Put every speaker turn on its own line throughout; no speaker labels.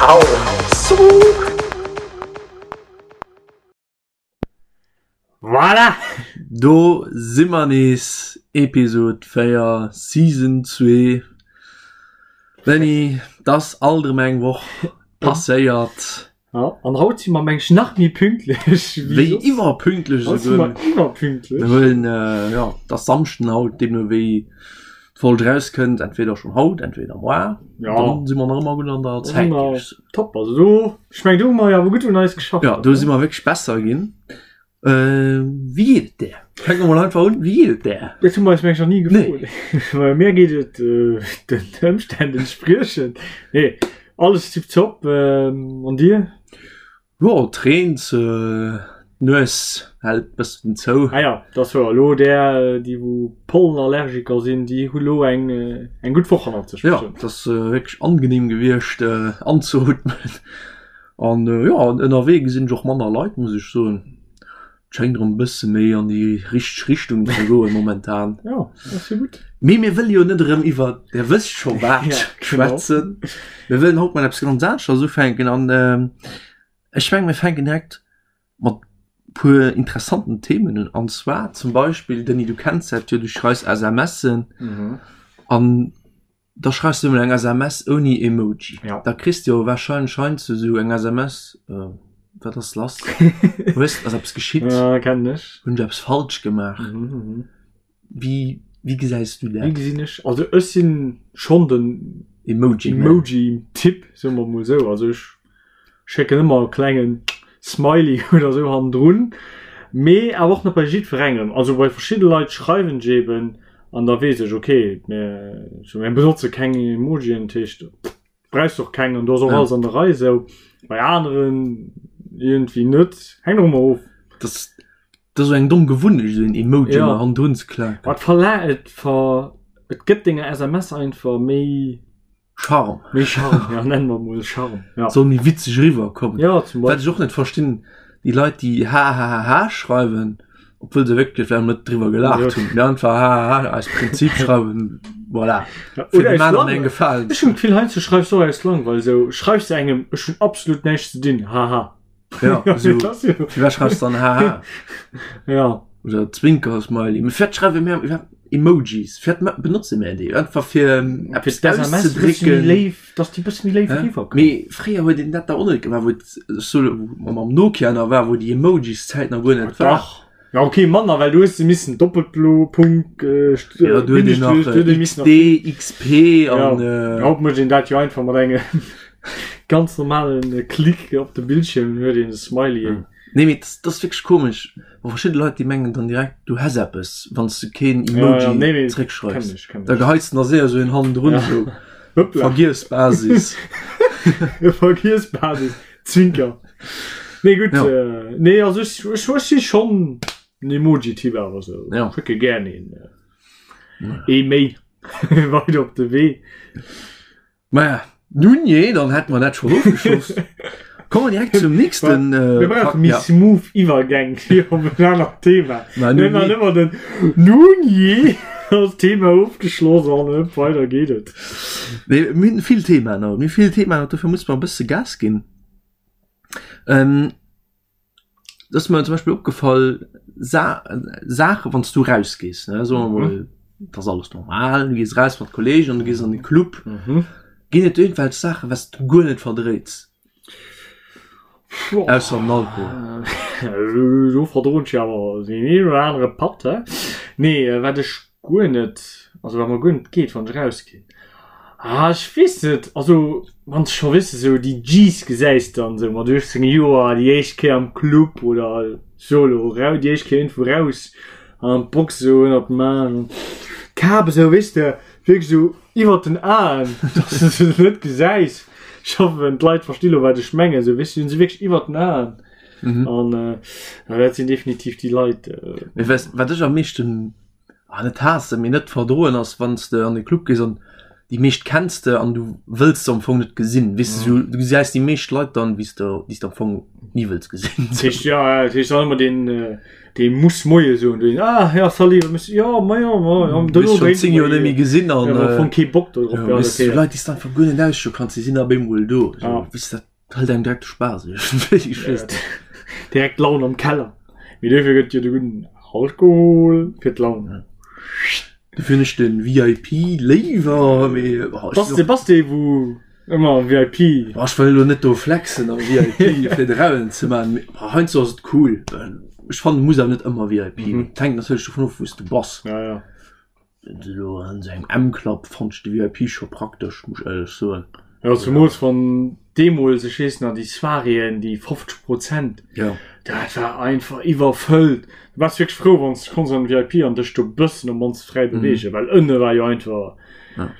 Ciao.
Voilà!
Do si mer nees, Episode 4, Season 2. Benny, 't ass alt erëm eng Woch passéiert.
Ja, an haut si mer meng ech nach méi pünktlech
wéi soss. Iwwerpünktlech
Haut si mer iwwerpünktlech.
Mir huelen, jo, 't ass Samschden haut, deemno wéi d'Folg erauskënnt, entweder schonn haut, entweder moar.
Ja.
Dann si mer nach ëmmer gutt an der
Da si
Zäit,
mer
géif ech soen.
top. Also do, ech meng do hu mer jo awer gutt un eis geschafft.
Ja, do si mer wierklech besser ginn. Äh, wéi geet et där? Fänke mer mol einfach un, wéi geet et där?
Dat hu mer eis meng ech nach ni gefrot. Nee. Mir geet et äh, den Ëmstänn entspriechend. Nee, alles tiptop. Ähm, an dir?
Jo, et reent, d'Nues hält bëssen zou.
Ah ja, dat ass wouer. Elo där, déi wou Pollenallergiker sinn, déi hu lo eng, eng gutt Woch hannert sech.
Jo, et ass wierklech angenehm gewiescht anzeootmen. An jo, ënnerwee gesinn ech och manner Leit, muss ech soen. Et schéngt erëm e bësse méi an déi richteg Richtung ze goen momentan.
Jo, dat ass jo gutt.
Mee mir wëlle jo net erëm iwwer der wësst scho wat schwätzen. Mir wëllen haut mat eppes ganz aneschters ufänken an ech mengen, mir fänken direkt mat puer interessanten Themen un. An zwar zum Beispill, Denis, du kenns dat jo, du schreifs SMSen an Da schreifs du emol eng SMS ouni Emoji.
Ja.
Da kriss du jo wahrscheinlech heiansdo sou eng SMS, äh, wat ass lass? Hues, ass eppes geschitt?
Ja, kennen ech.
Hunn ech eppes falsch gemaach?
Mhm, mhm.
Wéi, wéi gesäis du
Wéi
dat?
gesinn ech? Also ech sinn schonn den
Emoji-Man.
Emoji-Typ, soe mer mol sou. Also ech schécken ëmmer e klengen Smiley oder sou hannendrun, mee awer och net bei jiddwerengem. Also bei verschidde Leit schreiwen ech eben an da weess ech, okay, mir, so, mir benotze keng Emojien, dat heescht, brauchs och keng an do ass och
Ja.
alles an der Rei sou. Bei aneren iergendwéi net, hänkt och ëmmer of.
Das, das ass eng domm Gewunnecht, esou en Emoji
Ja.
ëmmer hannendrun ze klaken.
Ma et verla et ver et gëtt denger SMS einfach méi.
Charme.
Méi Charme, ja, nennen mer mol Charme. Ja.
Soll méi witzeg eriwwerkommen.
Ja, zum
Wat ech
Beispill.
och net verstinn, déi Leit, déi hahahaha schreiwen, obwuel se wierklech vläicht net driwwer gelaacht hunn, mee einfach hahaha aus Prinzip schreiwen, voilà,
Ja,
fir
oder
dem
aus
aneren eng
Langweil.
Gefalen
Ech
ze
hunn d'Gefill, heiansdo schreifs du och aus Langweil esou, schreifs du engem, ech hunn absolut näischt ze dinn, haha.
Ja, esou,
Das jo.
firwat schreifs du dann haha?
Ja.
Oder Zwinker-Smiley. Mee firwat schreiwe mir iwwerhaapt Emojis? Firwat ma- benotze mir déi? Einfach fir
Fir
eppes
d'SMS e bësse méi
auszedrécken.
léif, dass déi bësse méi léif
Hä?
eriwwerkommen.
Mee fréier huet een dat da och net gemaach, wou et sou wou mam Nokia nach war, wou déi Emojis-Zäit nach guer net war.
Dach. Ja, okay, manner, well du hues se missen Doppelplo, Punkt, äh, St-
Ja, du huet een nach
Bindestrich, du huet ee missen nach
XD, XP an
Ja.
äh,
Haut mécht een dat jo einfach mat engem ganz normalen äh, Klick op de Bildschirm, huet een e Smiley.
Nee, mee das, das ass wierklech komesch. Wa verschidde Leit, déi mengen dann direkt, du häss eppes, wann s du keen
Ja,
Emoji
ja, nee, nee,
zréckschreifs.
kenn ech, kenn
Da
ech.
geheits de nach séier esou een hannendrun,
Ja.
esou
Hoppla.
Vergiess-Basis.
Vergiess-Basis. Zwinker. Nee, gutt.
Ja.
Äh, nee, also ech, ech, ech si schonn en Emoji-Typ awer esou.
Ja.
Schécke gär een, äh, ee méi weider op de Wee.
Maja, nun jee, dann hätte mer dat schon ofgeschloss. Kommen wir direkt zum nächsten. Äh,
Wir brauchen méi
ja.
smooth Iwwergäng fir op en anert Thema.
Ma nun
Mir waren
jee.
ëmmer den Nun jee ass Thema ofgeschloss an äh, weider geet et.
Nee, mir hunn vill Themaen haut. Mir hu vill Themaen haut, dofir muss mer e bësse Gas ginn. Ähm, dat ass mir zum Beispill opgefall, Sa Saache wann s du rausgees, ne, soe mer mol, et ass alles normal, du gees raus mat Kolleegen an du gees an de Club, ginn et iergendwelch Saachen, wat s du guer net verdréits? Ausser den Alkohol.
Do verdroen ech jo awer deen een oder anere Patt, he? Nee, wat ech guer net, also wat mer guer net geet, wann ech rausginn, ah, ech weess net, also wann s de scho, weess de, sou déi G's gesäis dann sou mat 18 Joer déi éischt Kéier am Club oder solo rau, déi éischt Kéier iergendwou raus an an d'Box sou ënnert dem Aarm, d'Kap esou, weess de, wierklech sou iwwert den Aen, dass de se net gesäis. Ech hoffen, d'Leit versti lo, wat ech mengen, sou, weess de, hunn se wierklech iwwert den Aen.
Mhm.
An äh, ja, dat sinn definitiv déi Leit. Äh,
Mee weess, wat ech am meeschten ah, net haassen, mee net verdroen ass, wann s de an de Club gees an. Déi meescht kenns de an du wëlls se am Fong net gesinn. Weess de, du gesäis déi meescht Leit dann, wéi s de, déi s de am Fong ni wëlls gesinn.
Dat heescht, ja, ja, dat heescht dann ëmmer deen, dee muss Moie soen, deen, ah, ja, salut, wa muss, ja, ma ja, ma ja,
Du hues schonn 10 Joer net méi gesinn an,
ja, am Fong kee Bock do drop,
ja, weess du, Leit, déi s de einfach guer net ausstoe kanns, déi sinn op eemol do. Sou, weess de, dat hëlt engem direkt de Spaass, iergendwéi, ech weess net.
Direkt d'Laun am Keller. Mee duerfir gëtt jo de gudden Alkohol fir d'Laun.
Dofir hunn ech den VIP léiwer, mee
Bass de, bass de wou ëmmer VIP?
Oh, ech wëll elo net do flexen am VIP fir de Rauen ze man, mee heiansdo ass et cool. Ech fannen et muss awer net ëmmer VIP mm. Et hänkt natierlech dovun of wou s de bass.
Ja, ja.
Wenn du elo an esou engem M-Club fannt ech de VIP scho praktesch, muss ech éierlech soen.
Jo, zemools wann deemools, ech weess nach, déi Soiréeën, déi 50 Prozent,
Ja.
dat war einfach iwwerfëllt. Du waars wierklech frou, wann s de konns an den VIP an dech do bëssen op mannst fräi beweegen, well ënne war jo einfach.
Ja.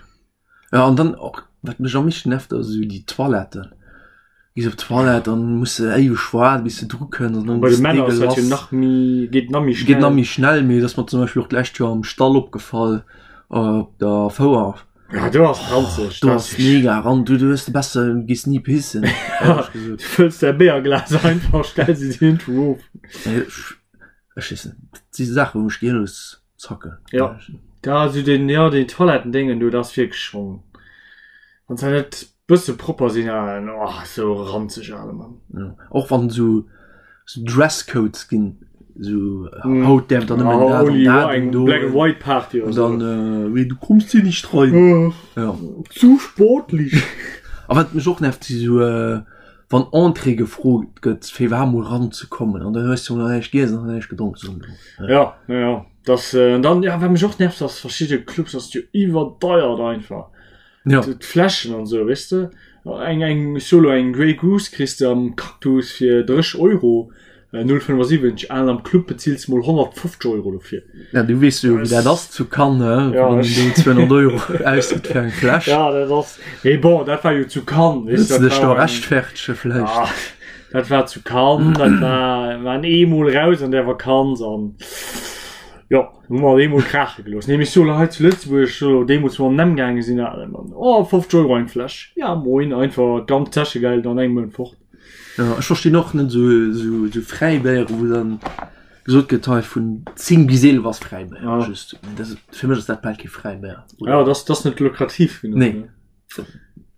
Ja, an dann och, wat mech am meeschten nervt, ass esou déi Toiletten. Gees op d'Toilette an muss de éiweg waarden, bis de dru kënns an dann
Bei de
ass
Männer ass dat jo
dégueulasse.
nach méi, geet nach méi
Geet
schnell.
nach méi schnell, mee et ass mer zum Beispill och d'lescht Joer am Stall opgefall, op der Fouer.
Ja, du ass ranzeg.
Du ass mega ran du du hues de besser du gehst nie pissen.
Du fëlls däi Béierglas einfach stells et irgendwou of.
Ech weess net, dat si Saachen wou mech gehirlos zacken.
Ja da sou den ja den Toilettendéngen do dat ass wierklech schonn wann se net bësse propper sinn an oh sou ranzeg ale Mann.
Ja och wann sou sou Dresscodes ginn sou haut däerf der nëmmen dat an dat
eng Black and White Party
oder sou. Dann wéi du kommst hier nicht rein.
Ja. Zu sportlich.
A wat mech och nervt si sou wann Entrée gefrot gëtt fir iwwerhaapt mol ranzekommen an dann hues du nach näischt giess an nach näischt gedronk sou.
Ja ja ja das dann ja wat mech och nervt ass verschidde Clubs ass jo iwwerdeiert einfach.
Ja.
D'Fläschen an sou, weess de? Eng, eng, solo eng Grey Goose kriss de am Cactus fir 30 Euro, 0,75, an am Club bezills de mol 150 Euro dofir.
Ja, du weess jo, wéi dat ass zu Cannes, hä?
Ja,
Wann een do 200 Euro ausgitt fir eng Fläsch.
Ja, dat ass, mee bon, dat war jo zu Cannes, weess
Wëlls
de,
de
dat
dech do
war eng,
rechtfertege vläicht?
ah, dat war zu Cannes, dat war, waren eemol raus an där Vakanz an, jo. Hu mer eemol kraache gelooss. Nee, mee solo hei zu Lëtzebuerg, solo deemools wou mer an den M gaange sinn, ah, Mann, oh, 50 Euro eng Fläsch, ja moin, einfach d'ganz Täschegeld an engem Mount fort.
Ja, ech verstinn och net esou, esou, esou Fräibéiere wou dann gesot gëtt, hei vun 10 bis 11 ass Fräibéier.
Ja.
Just, dat, fir mech ass dat bal kee Fräibéier.
Ja, dat ass, dat ass net lukrativ genuch.
Nee.
Ne?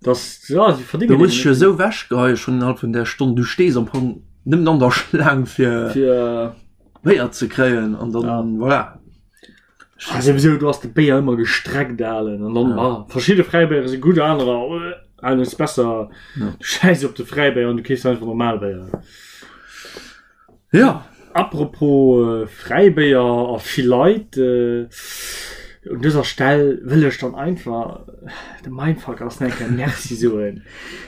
Das, ja, sie verdingen
Du muss ech jo esou wechgeheie schonn innerhalb vun där Stonn, du stees am Fong nëmmen an der Schlaang fir.
Fir.
Béier ze kréien an dann
ja.
voilà.
Ah, sowieso, du hast de Béier ëmmer gestreckt alen an dann ja. ah, verschiedene Fräibéiere si gutt anerer äh, ist besser
ja.
du scheiß op de Fräibéier an du kees einfach normal Béier.
Ja.
Apropos äh, Fräibéier a vill Leit äh, un dëser Stell wëll ech dann einfach de Mindfuck ass enker Merci soen.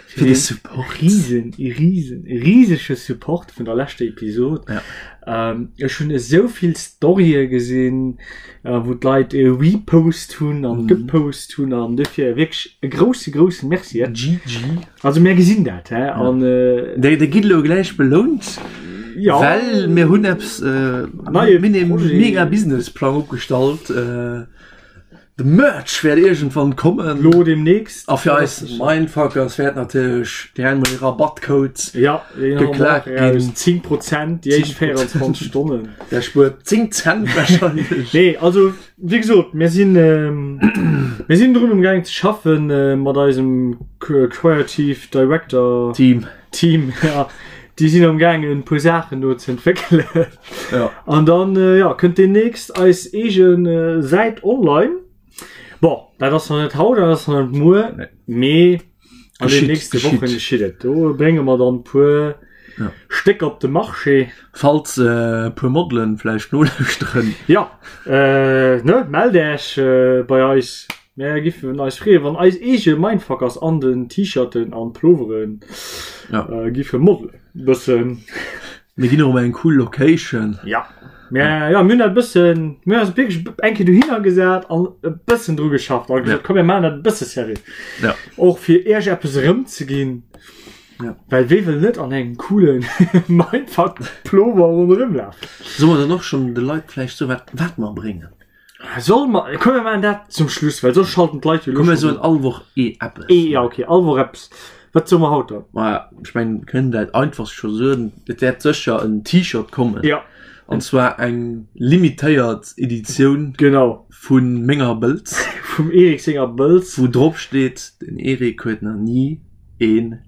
Fir de Support.
Riesen, riesen, riesege Support vun der leschter Episod.
Ja.
Ähm, ech hunn esou vill Storye gesinn, äh, wou d'Leit e Repost hunn an mm. gepost hunn an dofir wierklech e grousse grousse Merci.
GG.
Also mir gesinn dat hä? Ja. An
äh, Dei, dei gitt lo gläich belount.
Ja.
Well mir hunn eppes äh,
Neie
mega Businessplang opgestallt. Äh, De Merch wäert iergendwann kommen.
Lo demnächst.
A fir eis Mindfuckers wäert natierlech direkt mol ee Rabattcode
ja,
geklaakt ginn.
10 Prozent déi éischt 24 Stonnen.
Der spuert 10 Cent wahrscheinlech.
Nee, also wéi gesot, mir sinn mir sinn drun um gaang ze schaffen mat eisem Creative Director
Team.
Team, ja. Déi sinn am gaangen e puer Saachen do ze entwéckelen.
Ja.
An dann äh, ja, kënnt demnächst eis eegen äh, Säit online. Bon, dat ass noch net haut, dat ass noch net muer,
Nee.
mee an den
Geschitt,
nächste
geschitt.
Wochen geschitt et. Do brénge mer dann puer
Ja.
Stécker op de Marché.
Falls äh, puer Modelen vläicht nolauschteren.
Ja, äh, ne, mellt Äech äh, bei eis. Mär giffen eis freeën, wann eis eege Mindfuckers an den T-Shirten an Ploveren
Ja.
äh, giffe modelen. Bëssen.
Mir ginn och eng cool Location.
Ja. Mir, ja, mir hunn dat bëssen, mir hunn eis wierklech eng Kéier dohinner gesat an e bëssen dru geschafft a gesot,
Ja.
komm mir maachen dat e bësse seriö.
Ja.
Och fir iech eppes erëmzeginn.
Ja.
Well wee wëll net an engem coolen Mindfuck Plover ronderëm lafen?
Solle mer dann och schonn de Leit vläicht soen, wat, wat mer bréngen?
Soll mer, komm mir maachen dat zum Schluss, well soss schalten d'Leit jo
lo Komm mir soen all Woch ee eppes.
Ee, ja okay, all Woch eppes. Wat soe mer haut dann?
Ma ech mengen, mir kënnen dat einfachst scho soen, et wäert sécher en T-Shirt kommen.
Ja.
An zwar eng limitéiert Editioun.
Genau.
Vu menger Bëlz.
Vum Eric senger Bëlz.
Wou drop steet, den Eric huet nach ni een.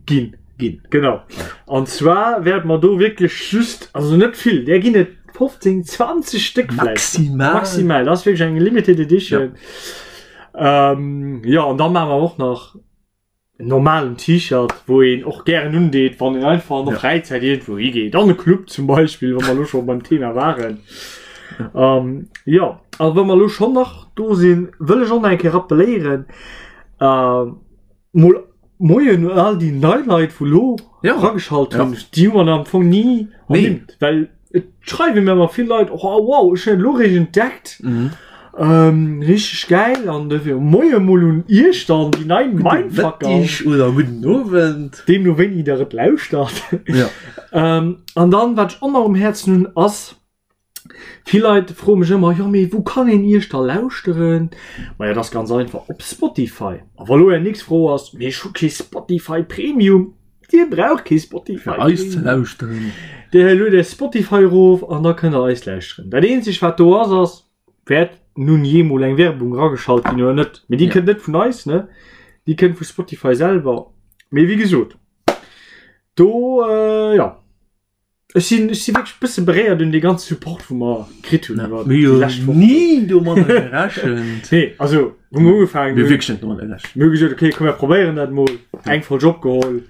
Ginn. Ginn. Genau. An zwar wäerte mer do wierklech just, also net vill, där ginn et 15, 20 Stéck
vläicht. Maximal.
Maximal. Dat ass wierklech eng limited edition. Ja. Ähm, ja, an da maache mer och nach en normalen T-Shirt, wou een och gären undeet, wann een einfach an der ja. Fräizäit iergendwou higeet. An e Club zum Beispill, wa mer lo scho beim Thema waren. Ja. Ähm, ja, a wa mer lo schonn nach do sinn, wëll ech och nach eng Kéier rappelléieren, äh, Mol Moien un all déi nei Leit wou lo
ja.
rageschalt hunn. Ja. Déi hu man am Fong nie
nee.
ernimmt, well et schreiwe mir ëmmer vill Leit oh, wow, ech hunn lo réischt entdeckt.
Mhm.
Ähm, richtig geil an dofir Moie mol un Iech dann déi nei Mindfucker.
Mëtteg oder gudden Owend.
Deemno wéini der et lauschtert.
Ja.
ähm, an dann wat ech och nach um Häerzen hunn ass, Vill Leit froe mech ëmmer, jo mee wou kann een iech da lauschteren? Maja dat ass ganz einfach, op Spotify. A wa lo är nächst Fro ass, mee ech hu kee Spotify Premium, Dir braucht kee Spotify
Fir eis ze lauschteren.
Dir luet är Spotify erof an da kënnt der eis lauschteren. Dat eenzegt wat do ass, ass, wäert nun jee mol eng Werbung erageschalt ginn oder net. Mee déi kënnt net vun eis, ne, déi kënnt vu Spotify selwer. Mee wéi gesot, do jo. Ech sinn, ech si wierklech bësse beréiert un dee ganze Support wou mer kritt hunn iwwer
Mir
déi lescht Wochen.
Ni domadder gerechent.
Nee, also wou mer ugefaangen
Mir
hunn,
wierklech net domadder gerechent.
mir hu gesot, okay, komm mir probéieren dat mol. Eng Folg opgeholl.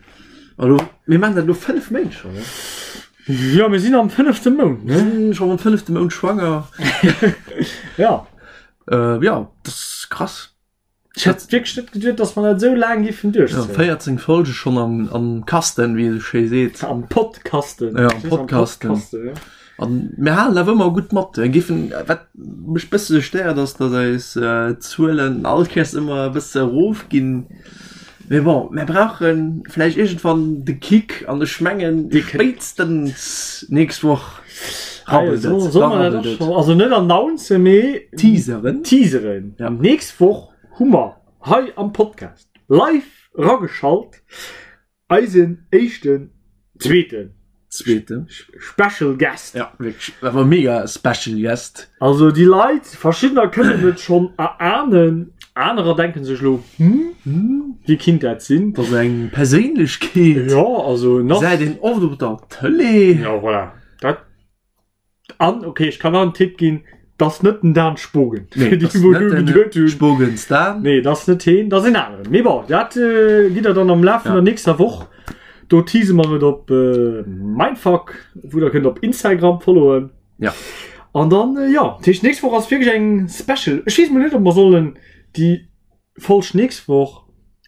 Elo, mir maachen dat elo 5 Méint schonn, ne?
Jo, mir sinn am fënnefte Mount,
ne? Mir sinn schonn am fënnefte Mount schwanger.
Ja.
Äh, ja, dat ass krass.
Ech hätt wierklech net geduet, dass mer dat esou laang giffen
duerchzéien. Ja, 14 Folge schon am, am Kasten, wéi ee sou schéi seet.
Am Podkasten.
Ja, am Podkasten.
Podkasten, ja.
An mir halen awer ëmmer gutt mat. Mir giffen, wat mech bësse stéiert, ass, dass eis äh, Zuelen all Kéiers ëmmer e bësse erofginn. Mee bon, mir brauche vläicht iergendwann de Kick an ech mengen, spéitstens nächst Woch
rabbelt et. Soll mer dat och scho, also net announcen, mee
teaseren.
Teaseren.
Ja.
Nächst Woch hu mer hei am Podcast live erageschalt eisen éischten, zweeten
Zweeten.
Special Guest.
Ja, wierklech, awer mega Special Guest.
Also déi Leit, verschiddener kënnen et schonn erahnen, anerer denken sech elo, hm,
Hm,
wie kinnt dat sinn?
Dat ass eng Perséinlechkeet.
Ja, also nach.
Säit een oft op der Tëlee.
Ja, voilà. Dat An, okay, ech kann nach en Tipp ginn, dat ass net den Dan Spogen.
Nee,
Fir déi,
dat ass
wou
net
elo
den
geduet hunn.
Spogens Dan.
Nee, dat ass net heen, dat ass een aneren. Mee bon, dat äh, gitt der dann am Laf vun
Ja.
der nächster Woch. Do tease mer et op äh, Mindfuck, wou der kënnt op Instagram followen.
Ja.
An dann, äh, ja, dat heescht, nächst Woch ass wierklech eng Special. Ech weess mol net, ob mer sollen déi Folg nächst Woch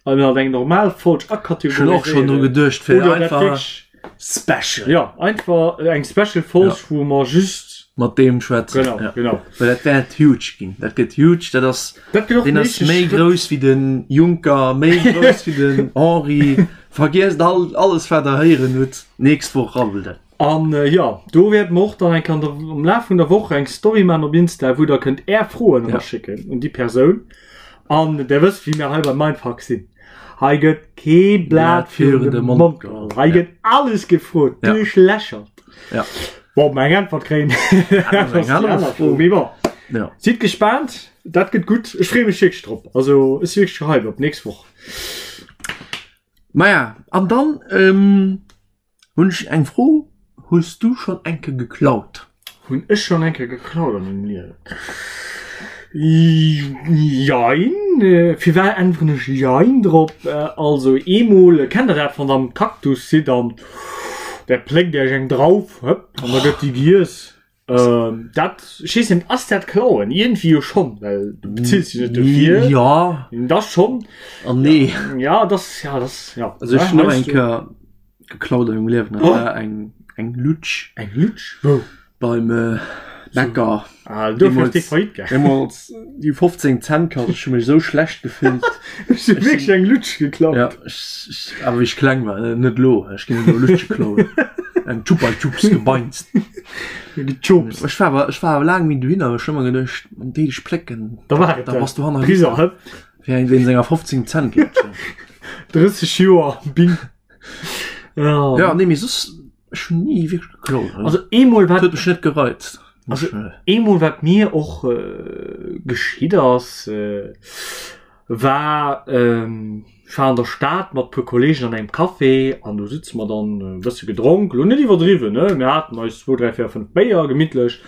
an halt eng normal Folg
Ech hunn och schonn dru geduecht fir
Oder dat
einfach
wierklech
Special
ja einfach eng Special Folg
Ja.
wou mer just
mat deem schwätzen.
genau
Ja.
genau
Well dat wäert huge ginn. Dat gëtt huge. Dat ass
dat gëtt och
deen ass
den
méi
éischte Schrëtt.
grouss wéi den Juncker, méi grouss wéi den Henri. Vergiesst all alles wat der héieren hutt. Nächst Woch rabbelt et.
An jo, do wäerte mer och dann eng Kéier an der, am Laf vun der Woch eng Story maachen op Insta, wou der kënnt är Froen
Ja.
eraschécken un déi Persoun. An der wësst, wéi mir hei bei Mindfuck sinn. Hei gëtt kee Blat virun de Mond geholl. Hei
Ja.
gëtt alles gefrot,
Ja.
duerchlächert.
Ja.
Bon, ob mer eng Äntwert kréien,
Dat ass eng aner Fro.
Mee bon,
Ja.
sidd gespaant, dat gëtt gutt. Ech freeë mech wierklech drop. Also, ech si wierklech gehypt op d'nächst Woch.
Maja, an dann, ähm, Hunn ech eng Fro, Hues du schonn eng Kéier geklaut?
Hunn ech schonn eng Kéier geklaut a mengem Liewen? Jein. Firwat äntweren ech jein drop? Also eemol, kennt der dat, wann der am Cactus sidd an der pléckt iech eng Drauf, hëpp, an da gëtt déi giess? Ähm, dat, ech weess net, ass dat klauen? Iergendwéi jo schonn, well du bezills jo net dofir.
Ja
Das schonn.
an nee.
Ja, das, ja, das, ja.
Also ech hunn och
Heißt
eng
du-
Kéier geklaut an mengem Liewen. Dat
Oh.
war eng, eng Lutsch
Eng Lutsch? Wou?
beim äh, Bäcker.
Ah, dofir ass
Deemools-
déi Faillite gaangen.
Deemools déi 15 Cent kascht. Ech hu mech esou schlecht gefillt.
Ech hu wierklech eng Lutsch geklaut.
Ja, ech, ech, awer wéi ech kleng war, net elo. Ech ginn net elo Lutsche klauen. Eng Chupa Chups gebeinst.
Gejobst.
Ech war awer, ech war awer laang méi dohinner, ech hu ëmmer geduecht, an déi dech plécken,
Da war et
da bass du hanner
Priser, hëpp.
Wéi eng wéinst enger 15 Cent Lutschen.
30 Joer, bing. Ja.
Ja, nee, mee soss, ech hunn ni wierklech geklaut.
Also eemol
wat
huet
mech net gereizt.
Also eemol wat mir och äh, geschitt ass, äh, war ähm, ech war an der Stad mat puer Kollegen an engem Café an do sitze mer dann e bësse gedronk, lo net iwwerdriwwen, ne, mir haten eis zwou, dräi, véier, fënnf Béier gemittlech.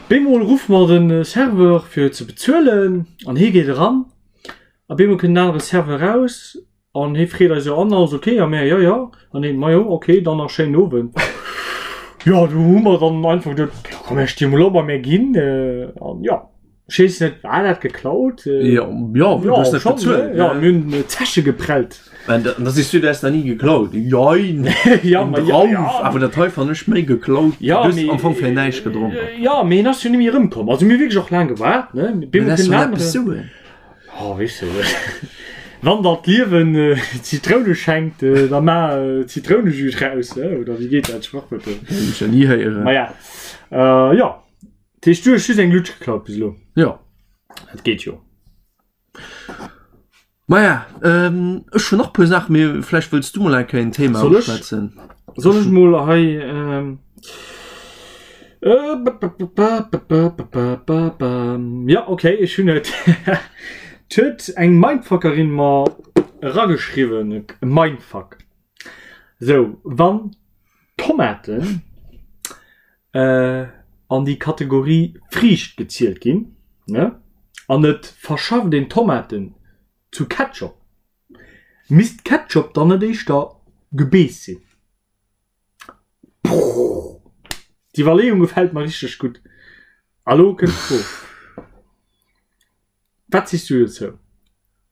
Bemol ruffe mer de Serveur fir ze bezuelen an hie geet eran a bemol kënnt en anere Serveur raus an hie freet eis jo an, alles ok? A mär, jo, jo. An hien, majo, ok, dann nach schéinen Owend. Jo, do hu mer dann einfach geduet, jo komm, mir sti mol op a mir ginn an jo. Ech weess net, war dat geklaut?
Ja, ja, du hast net bezuelt.
Ja, mir hunn Zeche geprellt.
An da, da siehst du, du hast da nie geklaut. Jein.
Ja, ma ja,
Drauf,
ja.
awer dat hei fand ech méi geklaut.
Ja,
du hast
mee-
am Fong fir näischt gedronk.
Ja, mee hien ass jo nemmi erëmkomm. Also mir hu wierklech och laang gewaart, ne?
Mee dat ass jo eppes soen.
Oh, weess du. Wann der d'Liewen äh, Zitroune schenkt, äh, da ma äh, Zitrounejus raus, äh, oder wéi geet dat Sprachwuert?
Hunn ech ja nie héieren.
Ma ja. Äh, ja. Dat heescht, du hues just eng Lutsch geklaut bis elo?
Jo.
Dat geet jo.
Maja, ähm, ech hunn nach puer Saachen, mee vläicht wëlls du mol eng Kéier en Thema
Soll ech?
uschwätzen.
Soll ech mol hei ähm, äh, ba, ba, ba, ba, ba, ba, ba, ba, ba. Ja, okay, ech hunn et. Et huet eng Mindfuckerin mer erageschriwwen, e Mindfuck. Sou, wann Tomaten an déi Kategorie Friicht gezielt ginn, ne, an et verschafft een Tomaten zu Ketchup, misst Ketchup dann net éischter Gebeess sinn? Brrr, d'Iwwerleeung gefält mer richteg gutt. A lo kënnt d'Fro, Wat sees du dozou?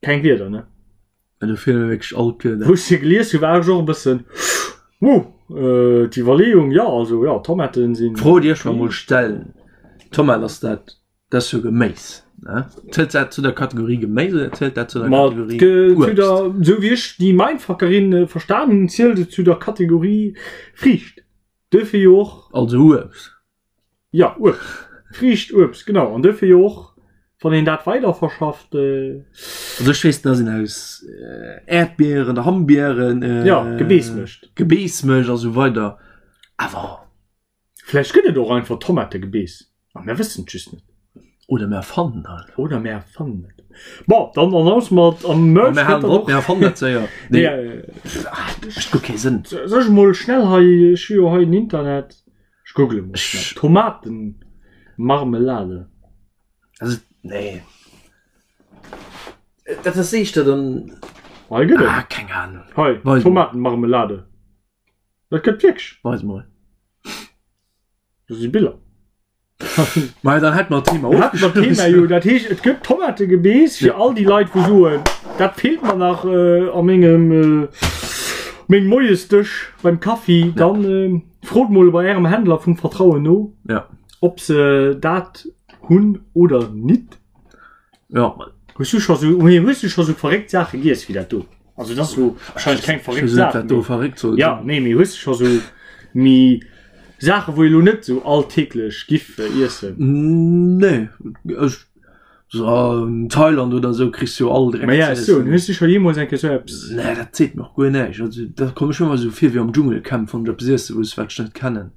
Keng Wierder, ne?
Ja, do feelen mir wierklech all d'Wierder.
Wou ech se gelies hu war ech och e bëssen wow, äh, d'Iwwerleeung, ja, also ja, Tomaten sinn.
D'Fro déi ech mer mol stellen, Tomat ass dat, dat ass jo Geméis, ne? Zielt dat zu der Kategorie Geméis oder zielt dat zu der
Ma
Kategorie
ge, zu
Uebst?
der, sou wéi ech déi Mindfuckerin äh, verstan hunn, zielt et zu der Kategorie Friicht. Duerfir jo och.
Also Uebst.
Ja, Uebst. Friicht, Uebst, genau. An duerfir jo och, wann een dat weider verschafft. Äh,
Also ech weess, dass een aus äh, Äerdbieren, Hambieren, äh,
ja, Gebeess mécht.
Gebeess mécht a sou weider. Awer
Vläicht gëtt et och einfach Tomategebeess a mir wëssen et just net.
Oder mir erfannen halt.
Oder mir erfannen et. Bon, dann annoncen mer et am Merch.
Mir halen drop, mir erfannen dat séier.
Nee, äh,
mécht guer kee Sënn.
Soll ech mol schnell hei, ech hu jo hei den Internet. Ech google mol schnell. Tomatenmarmelade.
Also, nee. Dat ass éischter dann.
Hei gëtt et.
Ah, keng Ahnung.
Hei, Tomatenmarmelade. Dat gëtt wierklech.
Weis mol.
Do si Biller.
Ma dann hätt mer d'Thema
Hätt mer d'Thema jo. Dat heescht, et gëtt Tomategebeess fir all déi Leit, wou soen, dat feelt mer nach äh, a mengem äh, mengem Moiesdësch beim Kaffi. Dann äh, frot mol bei ärem Händler vum Vertrauen no,
Ja.
ob se dat hunn oder nit.
Ja.
Hues du scho sou, nee, hues du scho sou verréckt Saache giess wéi dat do? Also dat ass lo wahrscheinlech keng verréckt Saach.
Dat do verréckt soll.
Ja, nee, mee hues du scho sou méi Saache wou ee lo net sou alltäglech giff iessen?
Nee, ech so an Thailand oder sou kriss du jo all Dreck
Ma ja,
ze
ech soen,
iessen.
hues du scho jeemools eng Kéier sou eppes?
Nee, dat seet mer och guer näischt. Also da komm ech mir ëmmer sou vir wéi am Dschungelcamp, wann ech eppes iesse muss, wat ech net kennen.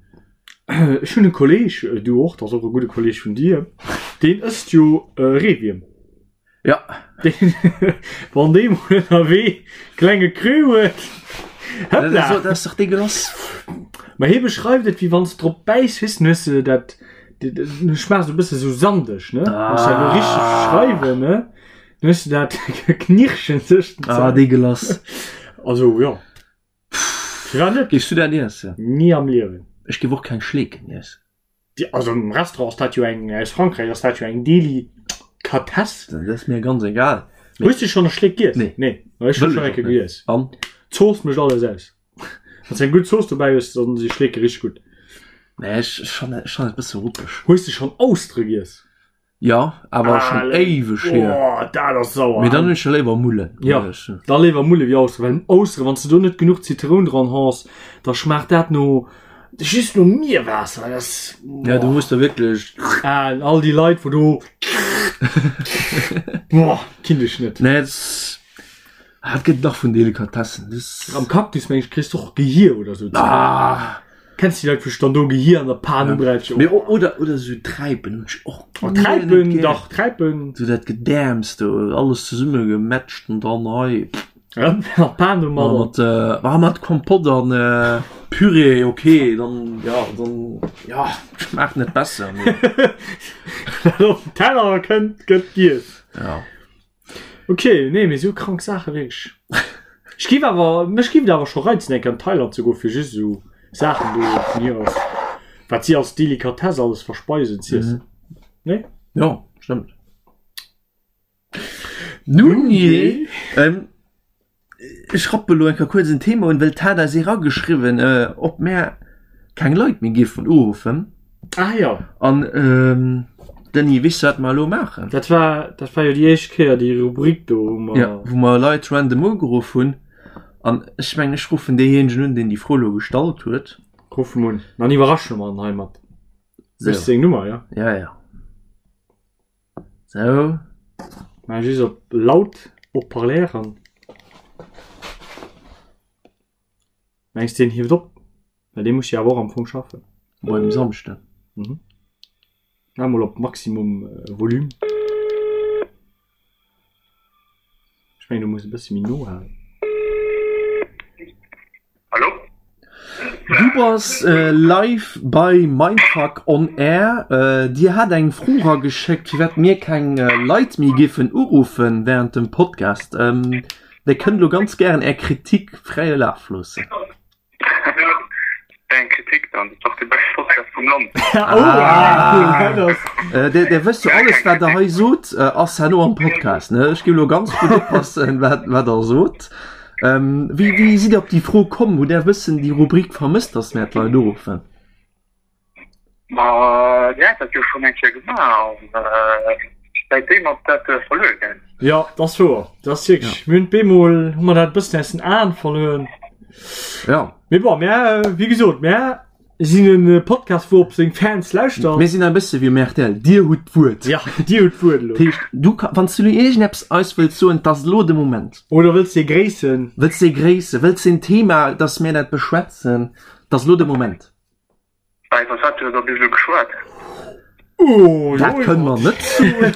Ech hunn e Kolleg, du och, dat ass och e gudde Kolleg vun dir, deen ësst jo Reewierm.
Ja.
Deen, wann dee mol ënnerwee klenge Creux huet, hëppla!
Dat ass dach deegelass.
Ma hie beschreift et, wéi wann s de drop bäiss, weess, dann hues de dat, du schmaachs e bësse sou sandeg, ne? Wann ech dat elo richteg beschreiwen, ne? Dann hues de dat Knirschen tëscht den
Ah,
Zänn.
deegelass.
Also, jo. Firwat net?
Géifs du dat iessen?
Ni am Liewen.
Ech géif och keng Schleeken iessen.
Déi, also am Restaurant ass dat jo eng, aus Frankräich ass dat jo eng Delikatess.
Dat ass mir ganz egal.
Hues du schonn e Schleek giess?
Nee.
Nee, ma ech hu
Wëll
schonn
ech
eng
och
Kéier
net.
giess.
An?
D'Zooss mécht alles aus. Wann s du eng gutt Zooss dobäi hues, dann si Schleeke richteg gutt.
Nee, ech, ech fannen, ech fannen et e bësse ruppeg.
Hues du schonn Austere giess?
Ja, awer schon éiweg hier.
Oh, dat ass sauer.
Mee dann hunn ech jo léiwer Mullen.
Ja, da léiwer Mulle wéi Austere, well Austere, wann s de do net genuch Zitroun dran haas, da schmaacht dat no. Just no Mierwaasser, dat ass.
Ja, du muss da wierklech.
Ah, all déi Leit, wou do. Boah, kinnt ech net.
Nee, das, ah, et gëtt nach vun Delikatessen. Das,
Am Cactus, meng ech, kriss du och Gehier oder sou.
ah,
Kenns du déi Leit, wou sech dann do Gehier an der Pan ubrätschen?
Mee, o- oder, oder sou Träipen hunn ech och
Oh,
guer net
Träipen,
gär.
dach, Träipen.
Sou dat Gedäerms do, alles zesummegemätscht an dann hei.
Ja, Pan domadder.
Mat, äh, ah, mat Kompott an äh, Püree, okay, dann, ja, dann, ja, schmaacht net besser. mee-
Wat op den Teller kënnt, gëtt giess.
Ja.
Okay, nee, mee sou krank Saache wierklech. Ech giff awer, mech giff et awer scho reizen eng Kéier an Thailand ze goen, fir just esou Saachen do vun hier aus, wat si als Delikatesse alles verspeisen, z'iessen. Nee?
Ja, stëmmt. Nun jee, ähm, ech rappe lo eng Kéier kuerz en Thema un, well d'hat eis erageschriwwen, äh, ob mär keng Leit méi géifen uruffen.
Ah jo.
An, ähm, Denis, weess du, wat mer elo maachen?
Dat war, dat war jo déi éischt Kéier, déi Rubrik do, wou mer.
Ja, wou mer Leit random ugeruff hunn. An ech mengen, ech ruffen deejéinegen un, deen déi Fro elo gestallt huet.
Ruff em un, dann iwwerrasche mer en heimat.
So.
Weess du seng Nummer, jo?
Ja, ja. Sou.
Mä just op laut Haut-parleur an. Mengs deen hieft op? Well dee muss jo awer och am Fong schaffen.
Moien um Samschden.
Mhm. Maach mol op Maximum Volume. Ech mengen du muss e bësse méi no halen.
Hallo?
Du bass live bei Mindfuck on Air. Dir hat eng Fro rageschéckt, firwat mir keng Leit méi géifen uruffen während dem Podcast. Dir kënnt elo ganz gären Är Kritik fräie Laf loossen.
Eng Kritik dann, dat ass dach de beschte Podcast vum Land.
Dir wësst jo, alles wat der hei sot, ass herno am Podcast, ne? Ech géif elo ganz gutt oppassen, wat der sot. Ähm, wéi, wéi sidd Dir op déi Fro komm? Hutt Där e bëssen déi Rubrik vermësst, dass mär d'Leit uruffen?
Ma Dir hat dat jo schonn eng Kéier gemaach an säitdeem ass dat verluer gaangen.
Jo, dat ass wouer. Dat ass wierklech, mir hunn bemol hu mer dat e bëssen aus den Aen verluer.
Ja.
Mee bon, mär, wéi gesot, mär sinn e Podcast, wou op seng Fans lauschtert.
Mir sinn e bësse wéi um rtl, Dir hutt d'Wuert.
Ja, Dir hutt d'Wuert elo.
Dat heescht, du ka, wann s du elo iergendeppes eis wëlls soen, 't ass elo de Moment.
Oder wëlls de gréissen?
Wëlls de gréissen, wëlls de en Thema, dass mir dat beschwätzen, 't ass elo de Moment.
Bah, iwwer wat huet der bis elo geschwat?
Oh,
Dat kënne mer net soen.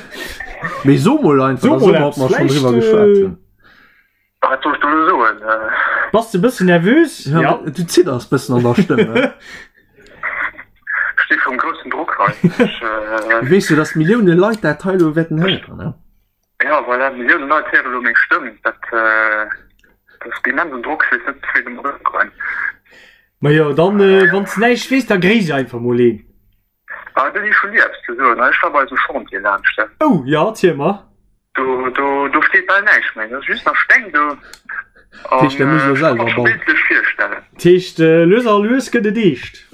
Mee so mol einfach,
So
da soe
mol
mer, ob
eppes.
mer schonn
Vläicht,
driwwer geschwat hunn.
Wat soll ech do elo soen?
Bass de bëssen nervös?
Ja, ja. Du zidders bëssen an der Stëmm. Ne?
Ech sti vum groussen Drock hei. Ech, äh...
Weess du, dass Millioune Leit dat hei elo wäerten héieren, ne?
Ja, voilà, Millioune Leit héiere elo meng Stëmm. Dat, äh, dat ass immensen Drock. Ech weess net, wéi domat ëmgoen.
Ma jo, dann, äh, wann s de näischt weess, da gréiss einfach mol een.
Ah, do si schon ni eppes ze soen. Ech war bei eisem Chantier laanscht.
Oh, jo, erziel mer.
Do, do, do steet bal näischt méi. Dat ass just nach Steng do.
Dat heescht, der muss elo selwer bauen.
Bildlech virstellen.
Dat heescht, lues a lues gëtt et eescht.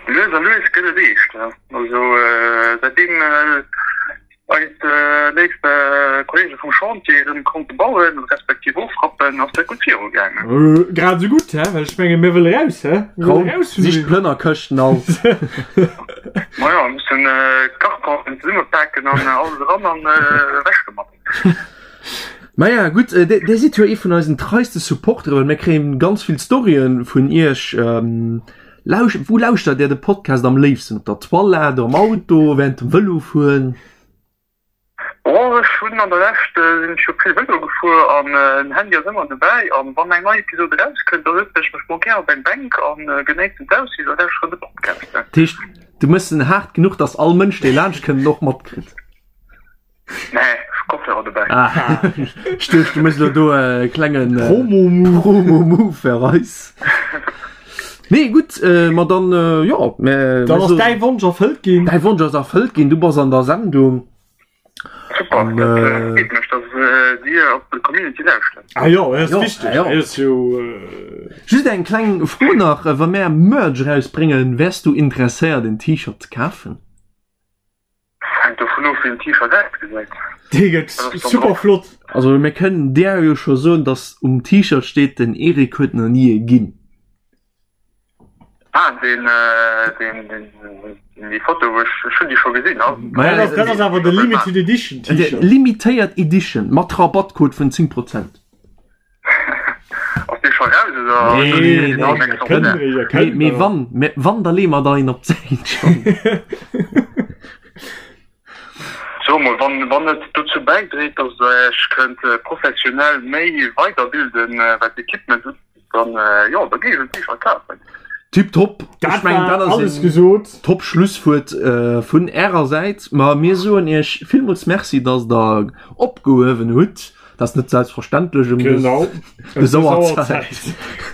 Lues a lues gëtt et eescht, ja. Also, säitdeem Eis léif Kollege vum Chantier erëm konnte bauen, respektiv ofrappen, ass dat gutt viru gaangen.
Grad esou gutt, he? Well ech menge mir wëlle raus, he? Mir wëlle raus vun
Sich d'Plënnerkëschten alt.
Majo, mir mussen d'Kartonen zesummepaken an alles eran an ewech domat.
Maja gutt, Dir sidd jo ee vun eisen treiste Supportere, well mir kréien ganz vill Storyen vun Iech. Lausch, wou lauschtert Dir de Podcast am léifsten? Op der Toilette, am Auto, während dem Vëlofueren?
Oh, ech hunn an der Lescht sinn ech jo vill Vëlo gefuer an den Handy ass ëmmer dobäi an wann eng nei Episode erauskënnt, da sëtzen ech mech mol gär op eng Bänk an genéissen d'Aussiicht a lauschteren de Podcast.
Dat heescht, du méchs en haart genuch, dass all Mënsch, dee laanscht kënnt, en och matkritt?
Nee, ech hu Kopfhörer dobäi.
Ah, ech duecht, du méchs elo do e klengen äh,
Promo-Move.
Promo-Move fir eis. Nee, gutt, äh, ma dann, äh, jo, mä,
Dann
mä
ass
so,
däi Wonsch erfëllt ginn.
däi Wonsch ass erfëllt ginn, du bass an der Sendung.
Super,
An,
dat
äh,
freet mech, dass äh, Dir op d'Community lauschtert.
Ah jo, dat ass
Jo,
wichteg.
ah jo.
Dat ass jo. Äh,
Just eng kleng Fro nach, äh, wa mär Merch erausbréngen, wäers du interesséiert en T-Shirt ze kafen?
Hänkt dovun of wéi den T-Shirt ausgesäit.
Dee gëtt super flott.
Also mir kënnen där jo scho soen, dass um T-Shirt steet, den Eric huet nach ni e ginn.
Ah, deen, deen, deen, déi Foto, wou ech, ech hunn déi scho gesinn.
Maja,
Dat ass, dat ass awer de Limited Edition T-Shirt.
Limitéiert Edition mat Rabattcode vun 10 Prozent.
Ass dee scho raus oder?
Nee,
nee,
nee,
nee,
nee,
Mee, mee wann, mee wann, da leeë mer der een op d'Säit schonn.
So mol, wann, wann et dozou bäidréit, datt Der Iech kënnt professionell méi weiderbilden, wat d'Equipement ugeet, dann, jo, da géif ech en T-Shirt kafen.
Tiptop.
Dat
Ech mengen,
war
dat ass
alles
een
gesot.
top Schlusswuert vun Ärer Säit. Ma mir soen Iech villmools Merci, datt Der opgehuewen hutt. Dat ass net selbstverständlech um
Genau.
dës Auerzäit.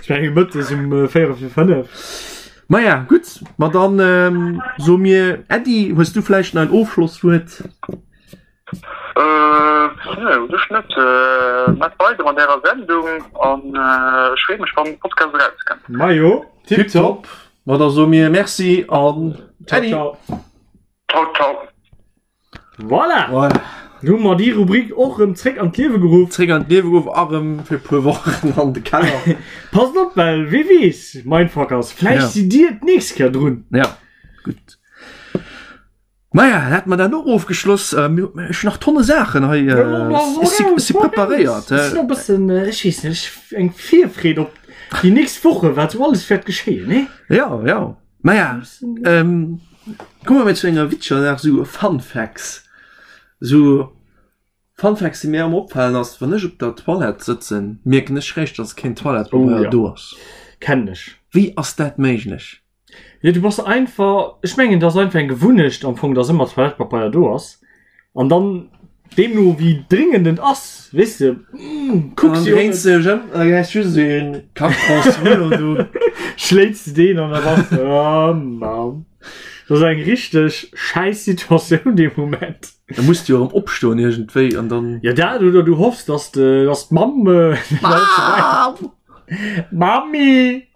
Ech menge mëttes um 4 vir 5.
Maja, gutt, ma dann soe mir Äddi. Hues du vläicht nach en Ofschlosswuert?
Nee, u sech net. Maacht weider mat ärer Sendung an ech freeë mech, wann de Podcast erauskënnt.
Majo,
Tiptop. Ma da soe mir Merci an
Äddi. Ciao, ciao.
Ciao, ciao.
Voilà!
Voilà.
Nu hu mer déi Rubrik och rëm zréck an d'Liewe geruff.
Zréck an d'Liewe geruff a rëm fir e puer Wochen an de Keller.
Passt op, well wee weess, Mindfuckers, vläicht
Ja.
sidd Dir d'nächst Kéier drun.
Ja, gutt. Maja, hätt mer dat och ofgeschloss. Äh, mir, ech hunn nach tonne Saachen hei. Äh, ech si, ech si preparéiert.
Ech sinn och e bëssen, ech weess net, ech eng Virfreed op déi nächst Woche, wat sou alles wäert geschéien, nee?
Ja, ja. Maja, ähm, komme mir zu enger witzeger Saach, sou Fun Facts. Sou Fun Facts, déi mir ëmmer opfalen ass, wann ech op der Toilette sëtzen, mierken ech réischt, dass keen Toilettepabeier
Oh ja.
do ass.
Kennen ech.
Wéi ass dat méiglech?
Jo, du bass einfach, ech mengen, dat ass einfach eng Gewunnecht am Fong, dass ëmmer Toilettepabeier do ass. An dann, deemno wéi dringend et ass, weess de, kucks
Dann
de jo
dréins de dech ëm an da gesäis just esou een Kartonsrullo do.
Schléits de deen an da bass de, oh Mann. Dat ass eng richteg schäiss Situatioun dee Moment.
Da muss de jo erëm opstoen iergendwéi an dann.
Jo, dat oder du hoffs, dass de, dass d'Mamm.
Mamm!
Mami!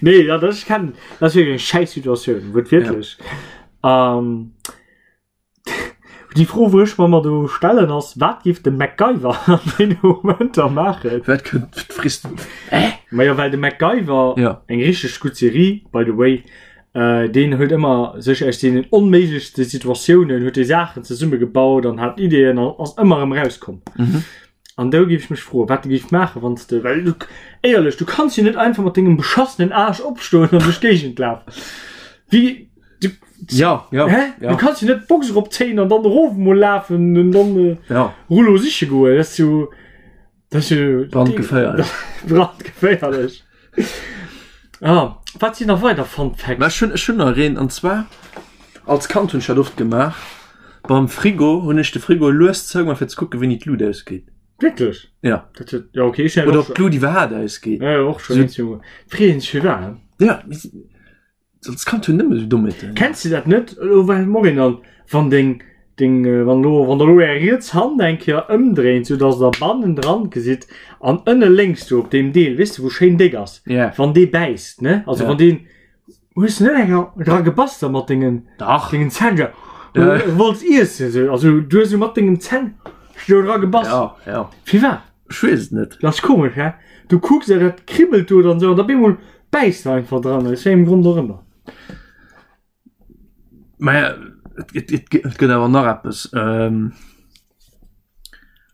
Nee, ja, das kann das ist wirklich eine scheiß Situation, wird wirklich. Ja. Ähm, die Fro, wo ich mir mal do stellen ass, wat giff de MacGyver an den Momenter maachen?
Wat kënnt frisst du? Hä?
Ma ja, well de MacGyver,
ja.
eng richtig gut Serie, by the way, äh, deen huet ëmmer sech aus deenen onméiglechste Situatiounen huet dee Saachen zesummegebaut an hat Ideen an ass ëmmer erëm rauskomm.
Mhm.
An do géif ech mech froen, wat de géif maachen, wann s de, well du, éierlech, du kanns jo net einfach mat dengem beschassenen Aarsch opstoen an duerch d'Géigend lafen. Wéi, du,
Ja, ja,
hä?
ja.
Du kanns jo net d'Box eropzéien an dann erof emol lafen an dann äh,
Ja,
Rullo siche goen. Dat ass jo, dat ass jo
brandgeféierlech.
Brandgeféierlech. Ah, wat sinn nach weider Fun Facts?
Mä ech hunn, ech hunn nach een, an zwar, als Kand hunn ech dat oft gemaach, beim Frigo hunn ech de Frigo lues zougemaach fir ze kucken, wéini d'Lut ausgeet.
Wierklech?
Ja.
Dat huet, ja okay, ech
Oder ob d'Lut iwwerhaapt ausgeet.
Ja, och schon
So-
eens, Junge. Freeën sech firwat?
Ja, mee als Kand hunn nëmme sou Dommheeten.
Kenns du dat net, elo well Morin an, wann deng, deng, wann elo, wann der elo är riets Hand eng Kéier ëmdréint, sou dass der bannendran gesitt an ënne lénks do op deem Deel, weess de wou schéin déck ass,
Ja.
wann dee bäisst, ne, also
Ja.
wann deen, hues de net eng Kéier dra gebass da mat dengen,
Dach.
dengen Zänn, ja,
Ja.
wollts iessen, sou, also du hues sou mat dengem Zänn do dra gebass.
Ja, ja.
Firwat?
Ech weess et net.
Dat ass komesch, hä? Du kucks a dat kribbelt do dann sou an da bemol bäisst de einfach dran, aus wéi engem Grond och ëmmer.
Mä et, et, et, et gëtt awer nach eppes. Ähm,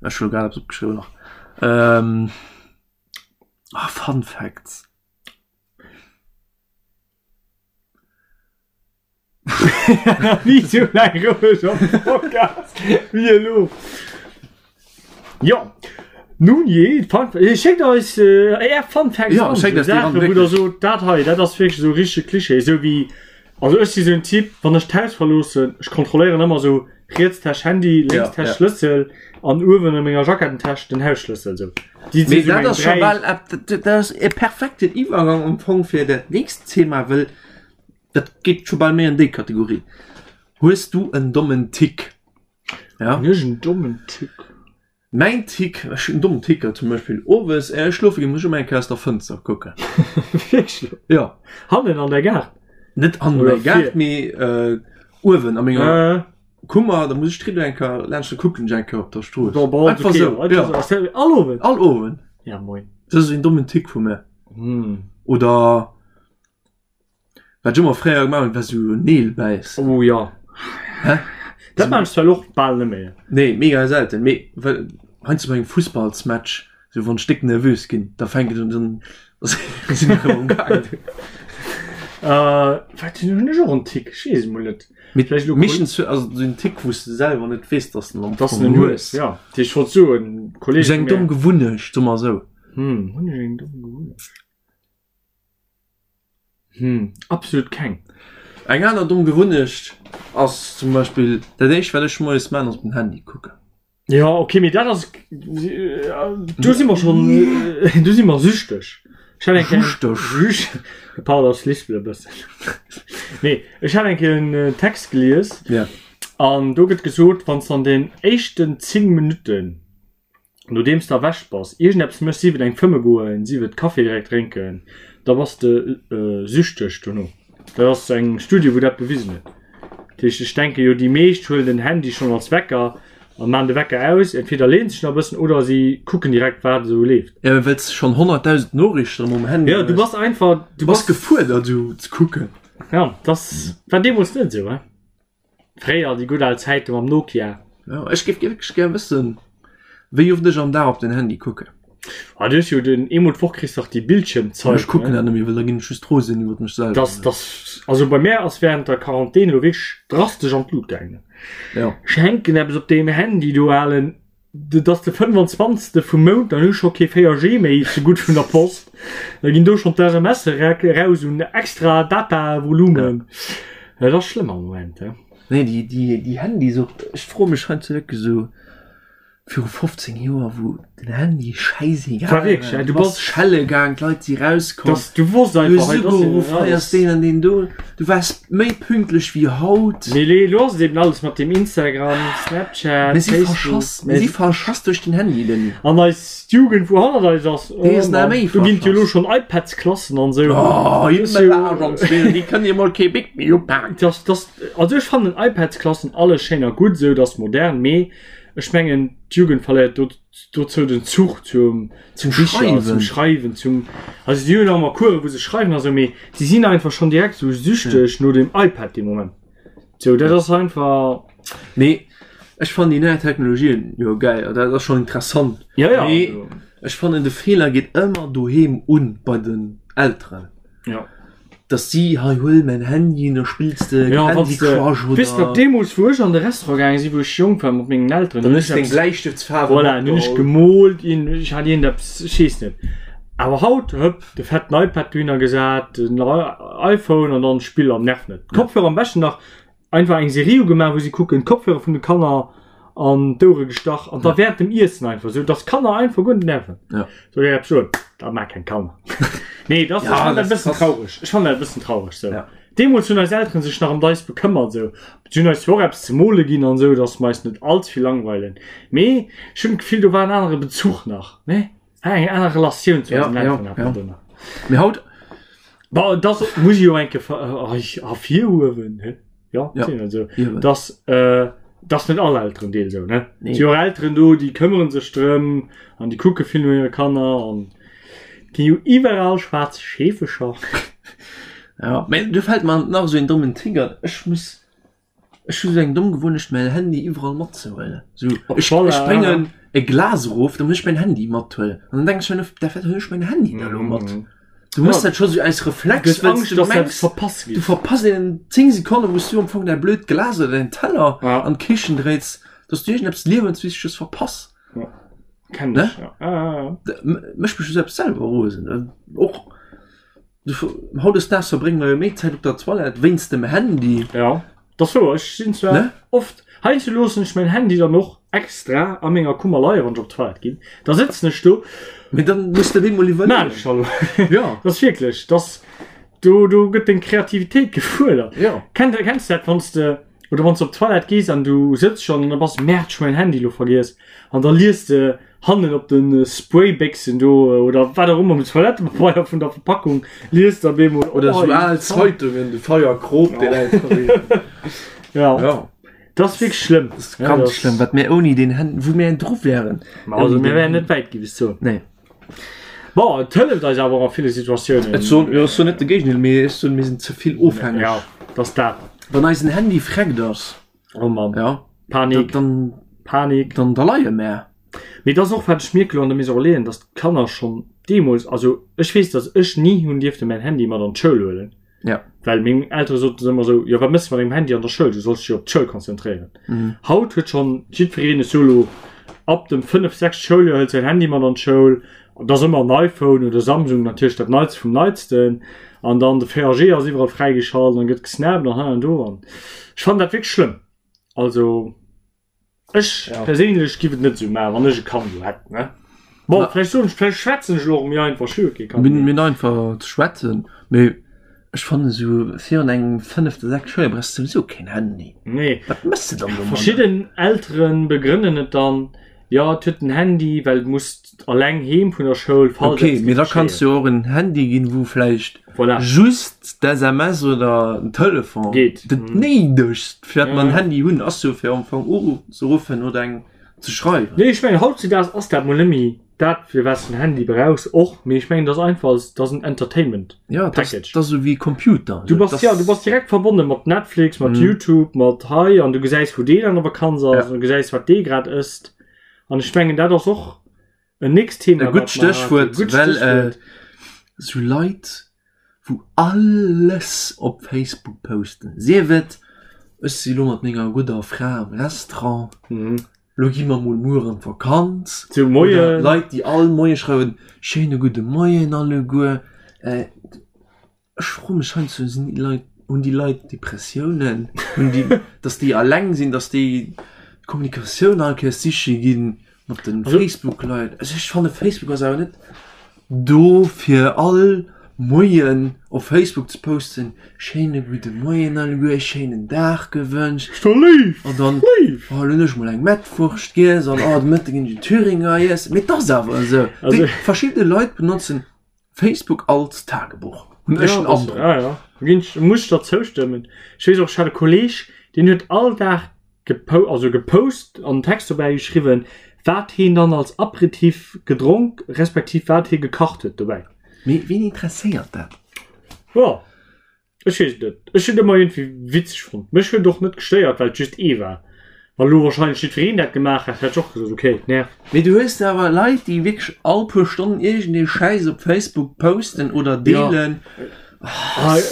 ech hu grad eppes opgeschriwwen nach. Ähm, ah, Fun Facts.
Ni sou laang roueg am Podcast wéi elo. Jo, nun jee, Fun eh, schéckt eis äh, är Fun Facts
Ja,
an,
schéckt
sou
eis déi ran,
Saachen, wou der
wierklech.
sot, dat hei, dat ass wierklech esou richtege Klischee, esou wéi, also ech si sou en Typ, wann ech d'Haus verloossen, ech kontrolléieren ëmmer sou riets Täsch Handy, lénks
Ja,
Täsch
ja.
Schlëssel an uewen a menger Jacketten-Täsch den Hausschlëssel, sou. Déi si
Mee
sou
dat
meng
ass scho
3.
bal ep- dat dat ass e perfekten Iwwergang am Fong fir dat nächst Thema, wëll dat geet scho bal méi an déi Kategorie. Hues du en dommen Tick? Ja.
Hunn ech en dommen Tick?
Mäin Tick, ech hunn en dommen Ticker, zum Beispill owes éier ech schlofe ginn, muss ech ëmmer eng Kéier aus der Fënster kucken.
Wierklech?
Ja.
Hannen an der Gaart?
Net an
Oder
der Gaart,
vir?
mee äh, uewen a menger
Äh.
Kummer, da muss ech d'Rido eng Kéier laanscht, da kucken ech eng Kéier op der Strooss.
Bon, bon,
Einfach
okay,
sou,
einfach
ja.
sou. Ass dat all Owend?
All Owend.
Ja, moin.
Dat ass en dommen Tick vu mir.
Hm.
Oder wat ech ëmmer fréier gemaach hunn, war sou Neel bäissen.
Oh ja.
Hä?
Dat maan ech zwar och bal net méi.
Nee, mega selten. Mee well heiansdo bei engem Fussballsmatch, sou wann ech déck nervös ginn, da fänkt et un, dann sinn ech erëm am gaangen.
Äh, wat hunn ech och en Tick? Ech weess et mol net.
Mee
Vläicht elo
meeschtens hu also sou en Tick, wou s de selwer net weess, dass de en am
Dass
Fong
en en
hues.
hues, ja. Ech wollt soen, Kolleege
Sou eng
vu mär.
domm Gewunnecht, soe mer esou.
Hm, hunn ech eng domm Gewunnecht? Hm, absolut keng.
Eng aner domm Gewunnecht ass zum Beispill, dat éischt wat ech moies maan ass op den Handy kucken.
Ja okay, mee dat ass, do si mer schonn, do si mer süchteg. Ech hat eng Kéier,
Süchteg?
Süch, de Paul ass lispelt e bëssen. Nee, ech hat eng Kéier en Text gelies
Ja.
an do gëtt gesot, wann s de an den éischten 10 Minutten Nodeems de erwächt bass, iergendeppes méchs, sief et eng fëmme goen, sief et Café direkt drénken, da bass de süchteg dono. Dat ass eng Studie wou dat bewisen huet. Dat heescht ech denke jo déi meescht huelen den Handy schonn als Wecker an maan de Wecker aus, entweder leeën sech nach e bëssen oder si kucken direkt wat esou leeft.
Jo, well s de schonn 100.000 Noriichten erëm um Handy
Jo, du
hues.
bass einfach, du
Du bass
bass,
gefuerdert esou ze kucken.
jo, dass war deemools net esou, he. Fréier, déi gutt al Zäite mam Nokia.
Jo, ech géif wierklech gär wëssen, wéi oft ech am Dag op den Handy kucken.
Ah, du hues jo den, eemol d'Woch kriss dach déi Bildschiermzeit,
Ech kucken
ne?
dat net méi, well da ginn ech just rosen iwwert mech selwer.
Das, das, also bei mär ass während der Quarantän elo wierklech drastesch an d'Lut gaangen.
Ja.
Ech hänken eppes op deem Handy do, alen. Et ass de 25. Vum Mount, dann hu ech scho kee 4G méi, ze gutt vun der Post. Da ginn do schonn d'SMSe raus un extra Datavolumen. Dat ass schlëmm am Moment, he.
Nee, déi, déi, déi Handysucht, ech froe mech heiansdo wierklech esou, viru 15 Joer, wou den Handy schäisegal
War wierklech,
war,
du
du bass
bass-
schelle gaang, d'Leit si rauskomm,
Dass du wosst
du
einfach,
hues
hei, das
ugeruff, hei ass deen an deen do, du waars méi pünktlech wéi haut.
Mee lee, lo ass et eben alles mat dem Instagram, Snapchat,
Mir si
Facebook.
verschass, mir si verschass duerch den Handy, Denis.
An eis Jugend, wou hannert eis ass, oh
Déi ass nach
Mann,
méi
do ginn et jo elo
verschass.
schonn iPads-Klassen an esou.
Oh,
Das ist jo-
déi kënnen jo mol kee Bic méi upaken.
Das, das, also ech fannen iPads-Klassen alles schéin a gutt esou, dat ass modern, mee ech mengen d'Jugend verléiert do, dozou den Zuch zum,
Zum
Bicher,
Schreiwen.
zum Schreiwen, zum, also si hunn nach ëmmer Coursen, wou se schreiwen a sou, mee si sinn einfach schonn direkt sou süchteg no dem iPad dee Moment. Sou, dat ass einfach.
Mee ech fannen déi nei Technologien jo geil, dat ass schonn interessant.
Ja, ja.
Mee ech fannen de Feeler geet ëmmer doheem un bei den Elteren.
Ja.
Dass si, hei huel mäin Handy, da spills de
Ja,
Candy
wann s de,
Crush
weess nach
oder.
deemools wou ech an de Restaurant gaange sinn, wou ech jonk war mat mengen Elteren,
Dann
hunn
hues
ech
de deng
eppes,
Bläistëftsfaarwe
voilà, hunn ech
matgeholl.
gemoolt, iergend, ech hat iergendeppes, ech weess net. Awer haut, hëpp, de fetten iPad dohinner gesat, den iPhone an dann Spill an nerv net. D'Kopfhörer am beschten nach einfach eng Serie ugemaach, wou si kucken, d'Kopfhörer vun de Kanner an d'Ouere gestach an da während dem Iessen einfach sou, dass d'Kanner einfach guer net nerven.
Ja.
Soll ech eppes soen? Dat mag keng Kanner. Nee, das,
Ja,
ech fand dat
das
e bëssen
ass-
traureg. Ech fand dat e bëssen traureg sou.
Ja.
Deemools hunn eis Elteren sech nach ëm eis bekëmmert sou. Si hunn eis zwar och eppes ze mole ginn an sou, dass mer eis net allze vill langweilen. Mee ech hunn d'Gefill, do war en anere Bezuch nach, ne? Eng aner Relatioun zu
Ja,
eisen
ja,
Elteren hat
ja.
man do nach.
Mee haut,
Bon, das muss ich jo eng Kéier ervirhuewen, he? Ja,
Ja.
sinn also,
hiewen.
dass, äh, dass net all Elterendeel sou, ne?
Nee.
Si och Elteren do, déi këmmeren sech drëm an déi kucke vill no hire Kanner an ginn jo iwwerall schwaarz Scheefecher.
Ja, mee do fält mer nach esou een dommen Tick an. Ech muss, ech hu sou eng domm Gewunnecht mäin Handy iwwerall matzehuelen. Sou,
Op
ech,
Toilette,
ech bréngen e Glas erof, da muss ech mäin Handy mathuelen. An dann denke ech mir, da wat huelen ech mäin Handy da elo mat? Du muss dat scho sou aus Reflex,
Du hues
well
Angscht,
du
dass dat
mengs,
verpasst
du
geet.
verpasst een 10 Sekonnen, wou s du am Fong däi blöd Glas oder däin Teller
Ja.
an d'Kichen dréits, dass du iergendeppes Liewenswichteges verpass.
Kenn
Ne?
ech, ja. Ah, ah, ah.
D- m- Mécht mech jo selbst selwer rosen. Och du, hautdesdaags verbrénge mer jo méi Zäit op der Toilette wéinst dem Handy.
Ja, dat ass wouer. Ech sinn zwar
Ne?
oft, heiansdo loossen ech mäin Handy dann och extra a menger Kummer leien, wann ech op d'Toilette ginn. Da sëtzen ech do.
Mee dann muss de bemol
Maan
iwwerleeën.
ech da lo?
Ja.
Dat ass wierklech, dass do, do gëtt deng Kreativitéit gefuerdert.
Ja.
Kennt, kenns du dat, wann s de, oder wann s de op d'Toilette gees an du sëtz schonn an da bass, Merde, ech hu mäin Handy lo vergiess. An da lies de hannen op de Spraybéchsen do oder wat och ëmmer um Toilettepabeier vun der Verpackung liest da bemol
Oder sou al Zeitungen, de Feier krop deen einfach een.
Ja.
Ja.
Dat ass wierklech schlëmm.
Dat ass ganz schlëmm, wat mir ouni den Hän, wou mir dru wären.
Also mir wären net wäit gi bis zou.
Nee.
Bon, et hëlleft eis awer och a ville Situatiounen.
Et soen, jo, ech soen net de Géigendeel, mee ech soen, mir sinn ze vill ofhängeg.
Ja, dat ass dat.
Wann eisen Handy freckt ass,
Oh Mann.
ja,
Panik.
dann,
Panik.
dann, da leie mär.
Mee dat ass och, wat ech mierke lo an der Maison Relais, dass d'Kanner schonn deemools, also ech weess, dass ech ni hunn dierfte mäin Handy mat an d'Schoul huelen.
Ja.
Well meng Eltere soten ëmmer esou, jo wat mëss de mat dengem Handy an der Schoul, du solls dech jo op d'Schoul konzentréieren.
Mhm.
Haut huet schonn jiddwereen, ech soe lo ab dem 5, 6 Schouljoer hëlt säin Handy mat an d'Schoul, et ass ëmmer en iPhone oder Samsung, natierlech dat Neitste vum Neitsten, an dann de 4G ass iwwerall fräigeschalt an gëtt gesnappt an hei an do an ech fannen dat wierklech schlëmm. Also. Ech
Ja.
perséinlech giff et net esou maachen, wann ech e Kand elo hätt, ne? Bon,
Na.
vläicht soen ech, vläicht schwätzen ech elo och méi einfach, ech hu jo kee Kand
Mir
méi.
mir einfach ze schwätzen, mee ech fannen esou virun engem fënnefte, sechste Schouljoer brauchs de souwisou keen Handy.
Nee.
Wat mëss de dann domadder?
Verschidden Eltere begrënnen et dann, jo, et huet en Handy, well et muss Alleng heem vun der Schoul, falls
Okay,
eppes
mee
géif
da kanns
geschéien.
du jo och en Handy ginn, wou vläicht
Voilà.
just d'SMS oder den Telefon
Geet.
dat
Mhm.
Néidegst, fir dat mer en
Ja.
Handy hunn, ass jo fir am Fong uzeruffen oder eng ze schreiwen.
Nee, ech mengen hautzudaags ass dat mol net méi dat, fir wat s de en Handy brauchs och, mee ech mengen, dat ass einfach als, dat ass en Entertainment
Ja, dat ass,
Package.
dat ass esou wéi Computer.
Du bass,
Dat
ja, du bass direkt verbonne mat Netflix, mat
Mhm.
YouTube, mat hei an du gesäis, wou deen an der Vakanz ass,
Ja.
an du gesäis, wat dee grad ësst. An ech mengen, dat ass och en nächst Thema.
E gutt Stéchwuert, well äh, sou Leit, wou alles op Facebook posten, sief et, ech si lo mat menger gudder Fra am Restaurant,
mhm.
lo gi mer mol muer an d'Vakanz.
Zu Moien.
Leit, déi all Moie schreiwen, schéine gudde Moien alleguer. Äh, Ech froe mech heiansdo, sinn déi Leit, hunn déi Leit Depressiounen? Hunn déi, datt déi alleng sinn, datt déi d'Kommunikatioun all Kéiers siche gi mat de Facebook-Leit? Also ech fanne Facebook ass awer net do fir all Moien op Facebook ze posten, schéine gudde Moien alleguer, schéinen Dag gewënscht.
Ass doch léif!
An dann,
Léif!
oh, lo hunn ech mol eng Mettwurscht giess an oh, de Mëtte ginn ech en Thüringer iessen. Mee et ass awer esou.
Also-
Déi verschidde Leit benotzen Facebook als Tagebuch hunn ech den Androck.
Ja, ja. Ginn ech, muss ech der zoustëmmen. Ech weess och, ech hat e Kolleg, deen huet all Dag gepo also gepost an en Text dobäi geschriwwen, wat heen dann als Aperitif gedronk respektiv wat hie gekacht huet dobäi.
Mee ween interesséiert dat?
Jo. Ech weess et net. Ech hunn et ëmmer iergendwéi witzeg fonnt. Mech huet et och net gestéiert, well et just ee war. Wann elo wahrscheinlech jiddwereen dat gemaach hätt, hätt ech och gesot, ok, et nervt.
Mee du hues awer Leit, déi wierklech all puer Stonnen iergendee Schäiss op Facebook posten oder deelen.
Ja.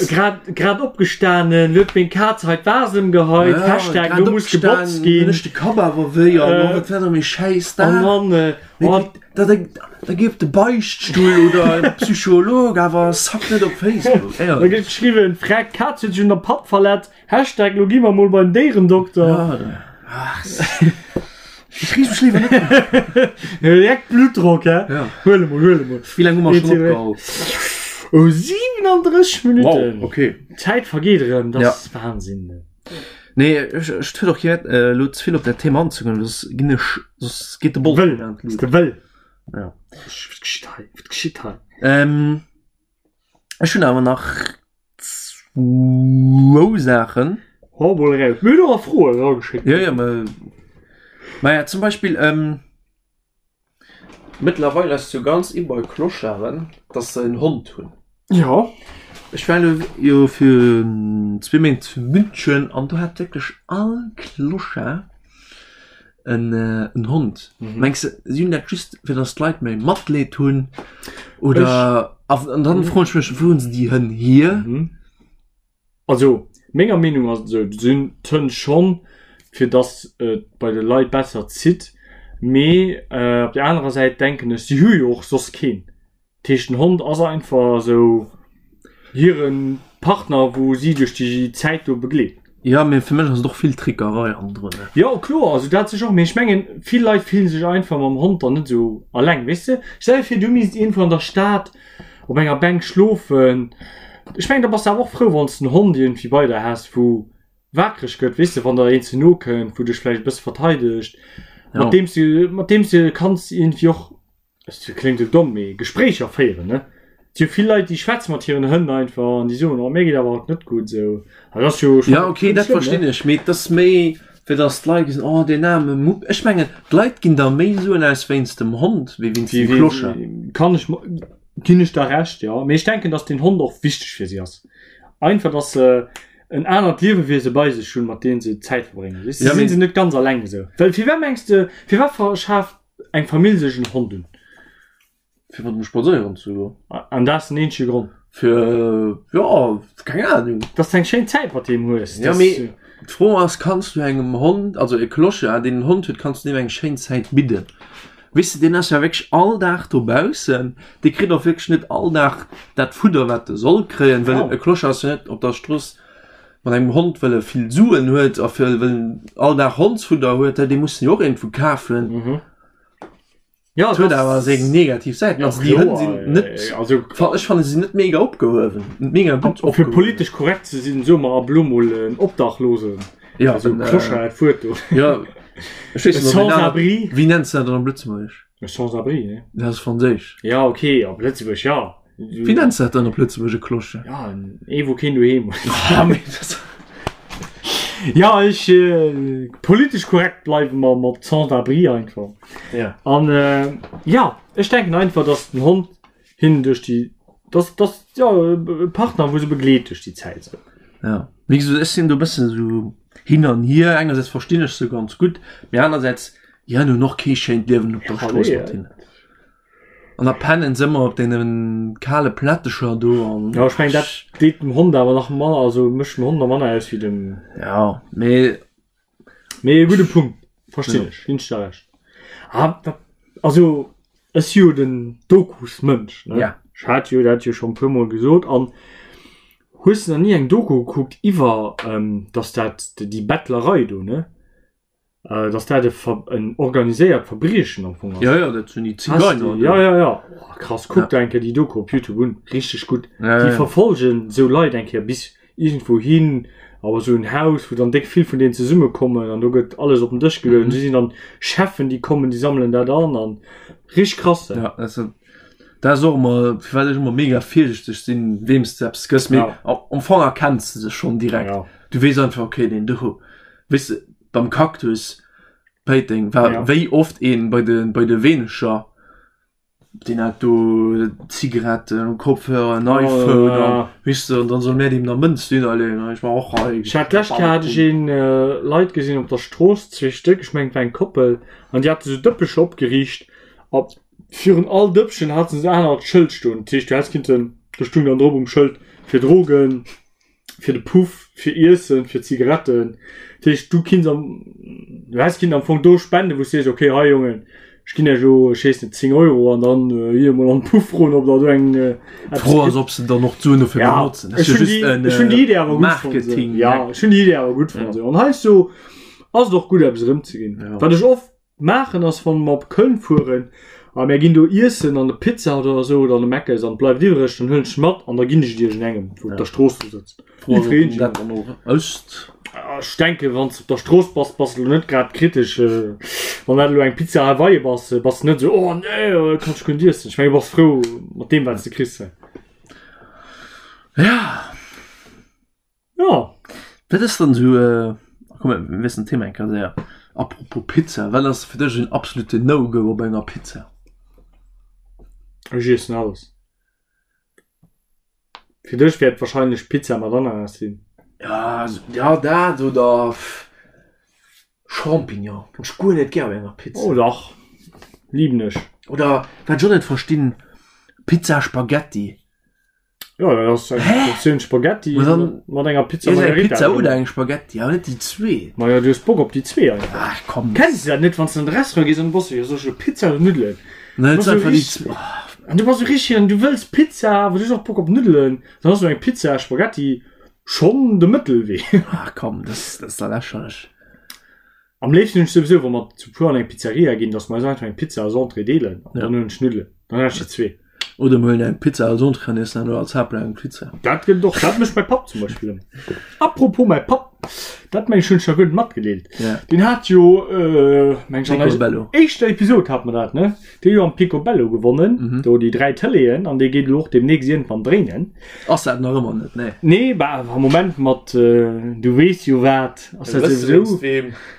Grad, grad opgestanen, huet meng Kaz hei d'Vase ëmgeheit,
Ja,
Hashtag,
grad
lo muss gebotzt
opgestanen,
ginn.
hunn ech de Kapp awer wéi an
Äh.
oh, wat war da méi Schäiss
An
da?
dann, äh,
Mee
oh,
Da, da, da gi op de Beichtstull oder en Psycholog, awer sack net op Facebook.
da
Éierlech.
gëtt geschriwwen, Freck, d'Kaz huet sech un der Patt verletzt, Hashtag, lo gi mer mol beim Déierendokter.
Ja, ach, ich riech mech liewer net un.
Direkt Blutdrock, hä?
Ja.
Huel emol, huel emol.
Wéi laang hu mer schonn opgeholl?
Oh, 37 Minuten.
Wow, okay.
D'Zäit vergeet erëm, dat
Ja.
ass Wahnsinn.
Nee, ech, ech huet och kee Wäert, äh, elo ze vill op dat Thema anzegoen, soss ginn ech, soss geet de Bols
Wëll,
an
ass
d'Luucht.
de wëll.
Ja.
Wat geschitt hei? Wat geschitt hei?
Ähm, ech hunn awer nach zwou Saachen.
Hau mol eraus. Mir hunn och nach Froen erageschéckt.
Ja, ja, ma, ma ja, zum Beispill, ähm, Mëttlerweil ass jo ganz in bei Clocharden, dass se en Hond hunn.
Ja.
Ech war elo jo fir zwee Méint zu München an do hat wierklech all Clochard en en Hond.
Mhm.
Mengs de, si hunn dat just fir dass d'Leit méi Matleed hunn oder an dann froen ech mech, wou hunn se déi Hënn hier?
Mhm. Also menger Meenung ass et esou, et sinn d'Hënn schonn, fir datt et bei de Leit besser zitt, mee op der anerer Säit denken ech, si hu jo och soss keen. Dat heescht den Hond ass einfach esou hire Partner, wou si duerch déi Zäit do begleet.
Jo, mee fir mech ass et och vill Trickerei hannendrun.
Jo kloer, also dat sech och, mee ech mengen vill Leit fillen sech einfach mam Hond dann net esou alleng, weess de. Stell dir vir du misst iergendwou an der Stad op enger Bänk schlofen. Ech mengen da bass de awer och frou wann s de en Hond iergendwéi bei der häss wou waakreg gëtt, weess de, wann der een ze no kënnt, wou dech vläicht e bësse verteidegt,
Ja.
mat deem s du mat deem s du kanns iergendwéi och, et kléngt elo domm, mee Gespréicher féieren, ne. Et si jo vill Leit déi schwätze mat hiren Hënn einfach an déi soen, oh mir geet awer haut net gutt esou. An dat ass jo
Ja okay, dat
schlëmm, ne?
verstinn ech, mee et ass méi fir datt d'Leit gesinn, oh deen aarme Mupp. Ech mengen d'Leit ginn der méi Suen aus wéinst dem Hond wéi wéinst dem Clochard.
Kann ech ginn ech der Recht, ja. Mee ech denken, dass den Hond och wichteg fir si ass. Einfach, dass se en anert Liewewiese bei sech hunn, mat deem se Zäit verbréngen. Weess du,
Ja,
sinn
mee
se net ganz alleng esou. Well firwat mengs de, firwat verschaaft eng Famill sech en Hond un?
Fir mat em spadséieren ze goen.
An dat ass den eenzege Grond?
Fir, jo, keng Ahnung.
Dass de eng schéin Zäit mat deem hues.
Ja, mee d'Fro ass, kanns du engem Hond, also e Clochard, deen en Hond huet, kanns du deem eng schéin Zäit bidden? Weess de, deen ass ja wierklech all Dag dobaussen, dee kritt och wierklech net all Dag dat Fudder, wat e soll kréien, well e Clochard ass jo net op der Strooss mat engem Hond, well e vill Suen huet a fir well en all Dag Hondsfudder huet, dee muss en jo och iergendwou kafen.
Ja,
Et huet awer seng negativ Säiten. Also déi Hënn sinn net,
also
ech fanne se sinn net mega opgehuewen, net mega gutt
fir
opgehuewen.
politesch korrekt ze sinn, soe mer ab elo mol en Obdachlosen.
Ja,
Also
en, äh,
Clochard, dat Wuert do.
Ja, ech weess
E
net, ob een aner,
Sans-abri.
wéi nenns de dat dann op Lëtzebuergesch?
E Sans-abri, ne?
Dat ass Franséisch.
Ja, okay, op Lëtzebuerg, ja.
Wéi nenns de dat dann op Lëtzebuerg, e Clochard?
Ja, en ee wou keen doheem huet.
Ah, mee dat
Ja, ech, äh, politesch korrekt bleiwe mer mat Sans-abri einfach.
Ja.
An äh, ja, ech denken einfach, dass den Hond hinnen duerch déi, dass, dass, ja, e Partner, wou se begleet duerch déi Zäit esou.
Ja, wéi gesot, ech sinn do e bëssen esou hin an hier. Engersäits verstinn ech se ganz gutt, mee anersäits, déi hunn och kee schéint Liewen op der
Ja,
Strooss
nee.
mat hinnen. An da pennen se ëmmer op deene kale Plättecher do an.
Ja, ech mengen, dat deet dem Hond awer nach manner, also mécht dem Hond nach manner aus wéi dem.
Ja, mee.
Mee e gudde Punkt, verstinn ech, ginn ech der Recht. Ah, dat, also ech si jo den Dokusmënsch, ne?
Ja.
Ech hat jo dat jo schonn e puermol gesot. An hues de nach ni eng Doku gekuckt iwwer, dass dat, déi Bettlerei do, ne? Äh, dass dat e Ver en organiséiert Verbriechen am Fong ass.
Ja, ja, dat sinn déi
Hast du-
Zigeiner.
Ja, ja, ja. Oh, krass, kuck
Ja.
da eng Kéier déi Doku op YouTube un. Richteg gutt.
Ja,
Déi
ja.
verfolgen sou Leit eng Kéier bis iergendwou hin, awer sou en Haus, wou dann déck vill vun deenen zesummekommen an do gëtt alles op den Dësch geluecht.
Mhm.
Mhm. Si sinn dann Cheffen, déi kommen, déi sammelen dat an an richteg krass.
Ja, dat ass, dat ass och ëmmer, firwat ech ëmmer mega virsichteg sinn, weem s de eppes gëss. Mee
Ja.
am am Fong erkenns de se schonn direkt.
Ja.
Du weess einfach, okay, deen do, weess de, beim Cactus Péiteng war
Ja.
wéi oft een bei de bei de Weenecher deen hat do Zigaretten, Kopfhörer, en iPhone
ja.
an weess de an dann soll mär deem nach Mënz dunner leeën an ech war och hei.
Ech hat d'lescht Kéier hat ech een äh, Leit gesinn op der Strooss, zwee Stéck, ech mengen et war eng Koppel, an déi hate sou Dëppecher opgeriicht a virun all Dëppchen haten se anert Schëld stoen. Dat heescht du häss kinnten, do stung dann drop um Schëld fir Drogen, fir de Puff, fir Iessen, fir Zigaretten. Dat heescht, du kinns am, du häss kinnt am Fong do spenden, wou s sees, okay, hei Jongen, ech ginn iech elo, ech weess net, 10 Euro an dann hier emol an de Puff froen, ob der do eng
eppes D'Fro ass, ob se dann och d'Suen dofir
Ja,
benotzen. Dat
ech
ass jo
hunn
just
déi,
en
ech hunn déi Idee awer gutt fonnt.
Marketing.
Ja, ech hunn déi Idee awer gutt fonnt. An heiansdo ass et och gutt, eppes erëmzeginn.
Ja.
Wat ech oft Maachen ass wann mer op Köln fueren a mär ginn do iessen an de Pizza Hut oder sou oder an de Mc's an et bleift iwwreg, dann huelen ech mat an da ginn ech et iergendengem wou op der Strooss do sëtzt.
Iwwregens dat dann och ësst.
Ech denken wann s de op der Strooss bass, bass de elo net grad kritesch. Wann dat elo eng Pizza Hawaii bass, bass de net esou oh nee kann ech guer net iessen. Ech mengen du bass frou mat deem wat s de kriss.
Ja.
Ja.
Wat ass dann esou, äh, komm mir wiesselen d'Thema eng Kéier séier. Apropos Pizza, wat ass fir dech en absolute No-Go op enger Pizza?
Ech iessen alles. Fir dech wäert wahrscheinlech Pizza mat Ananas sinn.
Ja, ja dat oder Champignon hunn ech guer net gär op enger Pizza.
Oh dach, liben ech.
Oder wat ech och net verstinn, Pizza Spaghetti.
Ja, dat ass eng Portioun Spaghetti
Ma dann-
mat enger Pizza
Iess eng
Margherita
Pizza
drin.
oder eng Spaghetti, awer net déi zwee.
Ma ja, du hues Bock op déi zwee einfach.
Ach komm.
Kenns du dat net, wann s du an de Restaurant gees an du bass sou, jo, soll ech elo Pizza oder Nuddelen?
Nein,
Du
et
bass
ass
sou
einfach déi
richtig-
zwee. Oh.
An du bass sou richtig an du wëlls Pizza, awer du hues och Bock op Nuddelen. Dann ass sou eng Pizza Spaghetti schonn de Mëttelwee.
Ach komm, das, das ist da lächerlech.
Am léifsten hunn ech souwisou, wa mer zu puer an eng Pizzeria ginn, dass mer eis einfach eng Pizza als Entrée deelen an dann hunn ech Nuddelen. Dann hunn ech déi zwee.
Oder mer huelen eng Pizza als Entrée an iessen herno als Haaptplat eng Pizza.
Dat gëtt et och. Dat mécht mäi Papp zum Beispill ëmmer. Apropos mäi Papp, dat meng ech hunn ech der guer net matgedeelt.
Ja.
Deen hat jo, meng ech an eiser
Picobello.
éischter Episod hate mer dat, ne? Dee jo am Picobello gewonnen, do déi 3 Tëleeën an dee geet elo och deemnächst iergendwann dréinen.
Ass dat nach ëmmer net, nee.
Nee, bah am Moment mat du weess jo wat, ass dat souwisou,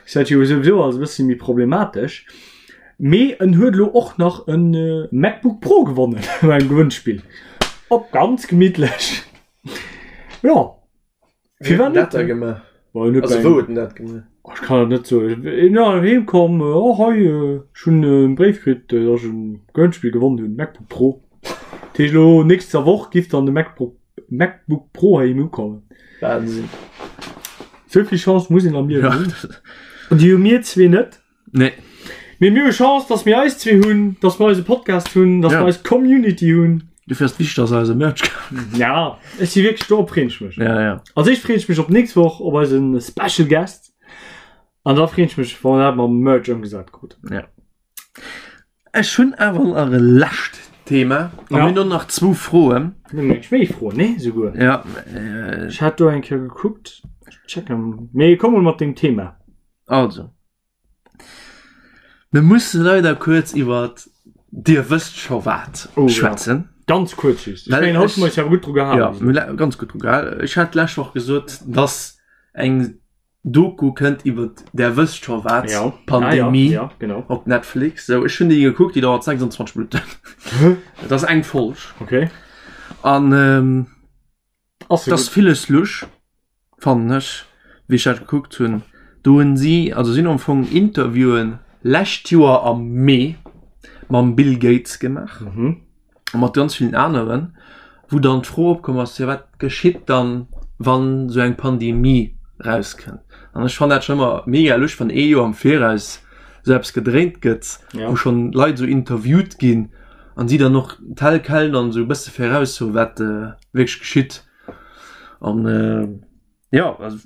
ass dat jo souwisou alles e bëssi méi problematesch. Mee en huet elo och nach en MacBook Pro gewonnen beim Gewënnspill. Op ganz gemittlech. Jo.
Firwat net? Dat gemaach? Also wou huet en dat
gemaach? Oh, ech kann et net soen. En ass heem komm, oh hei, ech hunn e Bréif kritt, datt ech e Gewënnspill gewonnen hunn, MacBook Pro. Dat heescht elo nächster Woch giff dann de MacBook MacBook Pro heiheem ukommen.
Wahnsinn.
Sou vill Chance muss een am Liewen hunn. An déi hu mir zwee net.
Nee.
Mee mir hu Chance, dass mir eis zwee hunn, dass mir eise Podcast hunn, dass ja. mir eis Community hunn.
Dofir ass wichteg, dass eise Merch
kauft. Ja, ech si wierklech do freeën ech mech.
Ja, ja.
Also ech freeën mech op nächst Woch op eisen Special Guest. An da freeën ech mech, wann dat mam Merch ëmgesat krut.
Ja. Ech hunn awer nach e lescht Thema. An ja. mir hunn nach zwou Froen.
Méi Froen, nee, souguer.
Ja.
Äh, ech hat do eng Kéier gekuckt. Checken. Mee komm mol mat dengem Thema.
Also. Mir musse leider kuerz iwwer Dir wësst scho wat
oh,
schwätzen.
Ja. Ganz kuerz just. Ech mengen, haut hu mer eis awer gutt dru
gehalen. Ja, ganz gutt dru gehalen. Ech hat d'lescht Woch gesot, dass eng Doku kënnt iwwer Der wësst scho wat,
ja.
Pandemie
ah, ja, ja, genau.
op Netflix. So, ech hunn déi gekuckt, déi dauert 26 Minutten. Dat ass eng Folg.
Okay.
An ähm,
Ass
Dat ass villes lusch, fannen ech, wéi ech dat gekuckt hunn. Do hunn si, also si hunn am Fong Interviewen lescht Joer am Mee mam Bill Gates gemaach a mat ganz villen aneren, wou dann d'Fro opkomm ass, jo wat geschitt dann, wann esou eng Pandemie rauskënnt? An ech fannen dat schonn ëmmer mega lusch, wann ee Joer am Viraus esou eppes gedréint gëtt, wou schonn Leit esou interviewt ginn an si dann och tel quel dann esou e bësse viraussoen, wat wierklech geschitt. An äh, ja also,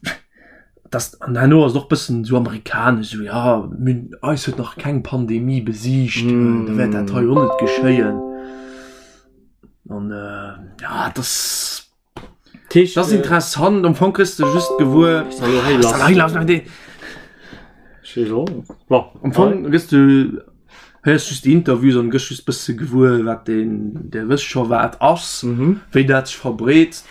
das an herno ass och bëssen so amerikanesch so ja mün, eis huet nach keng Pandemie besiegt mm. da wäert dat hei och net geschéien. An äh, ja das
Tisch,
das
äh,
interessant am Fong kriegst du just gewuer Am Fong gëss du héiers just déi Interviews an gëss just bësse gewuer wat deen der wësst scho wat ass, wéi dat sech verbreet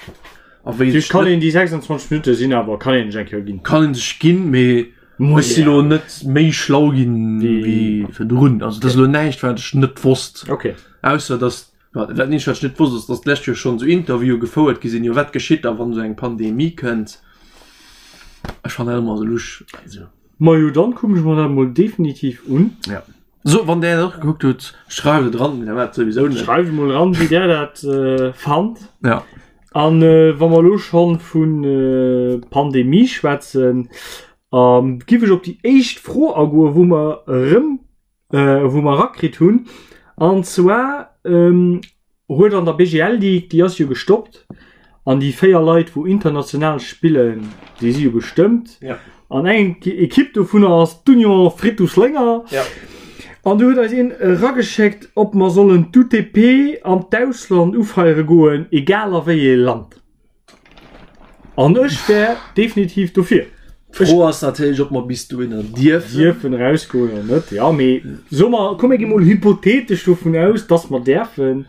a wéi sech kann een déi 26 Minutte sinn awer kann een sech eng Kéier ginn.
Kann een sech ginn, mee ech si lo net méi schlau ginn wéi virdrun. Also dat ass elo näischt wat ech net wosst.
Okay.
Ausser datt dat eenzegt wat ech net wosst ass, datt d'lescht Joer schonn esou Interviewe gefouert gi sinn, jo wat geschitt da wann esou eng Pandemie kënnt. Ech fannen dat ëmmer esou lusch. Also.
Majo dann kucken ech mer dat mol definitiv un.
Ja. So, wann där dat och gekuckt hutt, schreift et ran, mir dat souwisou
net. Schreift mol ran, wéi där dat äh, fannt.
Ja.
An äh, wa mer lo schon vun äh, Pandemie schwätzen, ähm, giff ech op déi éischt Fro agoen, wou mer erëm äh, wou mer rakritt hunn. An zwar ähm, huet an der BGL League, déi ass jo gestoppt, an déi 4 Leit, wou international spillen, déi si jo gestëmmt.
Ja.
An eng Ekipp dovunner ass d'Union Frittus Lénger.
Ja.
An du huet eis een erageschéckt, ob mer sollen d'UTP an d'Ausland ufeiere goen, egal a wéi ee Land. An ech wär definitiv dofir.
D'Fro ass natierlech, ob mer bis dohinner dierfen.
Dierfen erausgoen oder net. Ja, mee so mer, komm mir gi mol hypothetesch dovun aus, dass mer däerfen.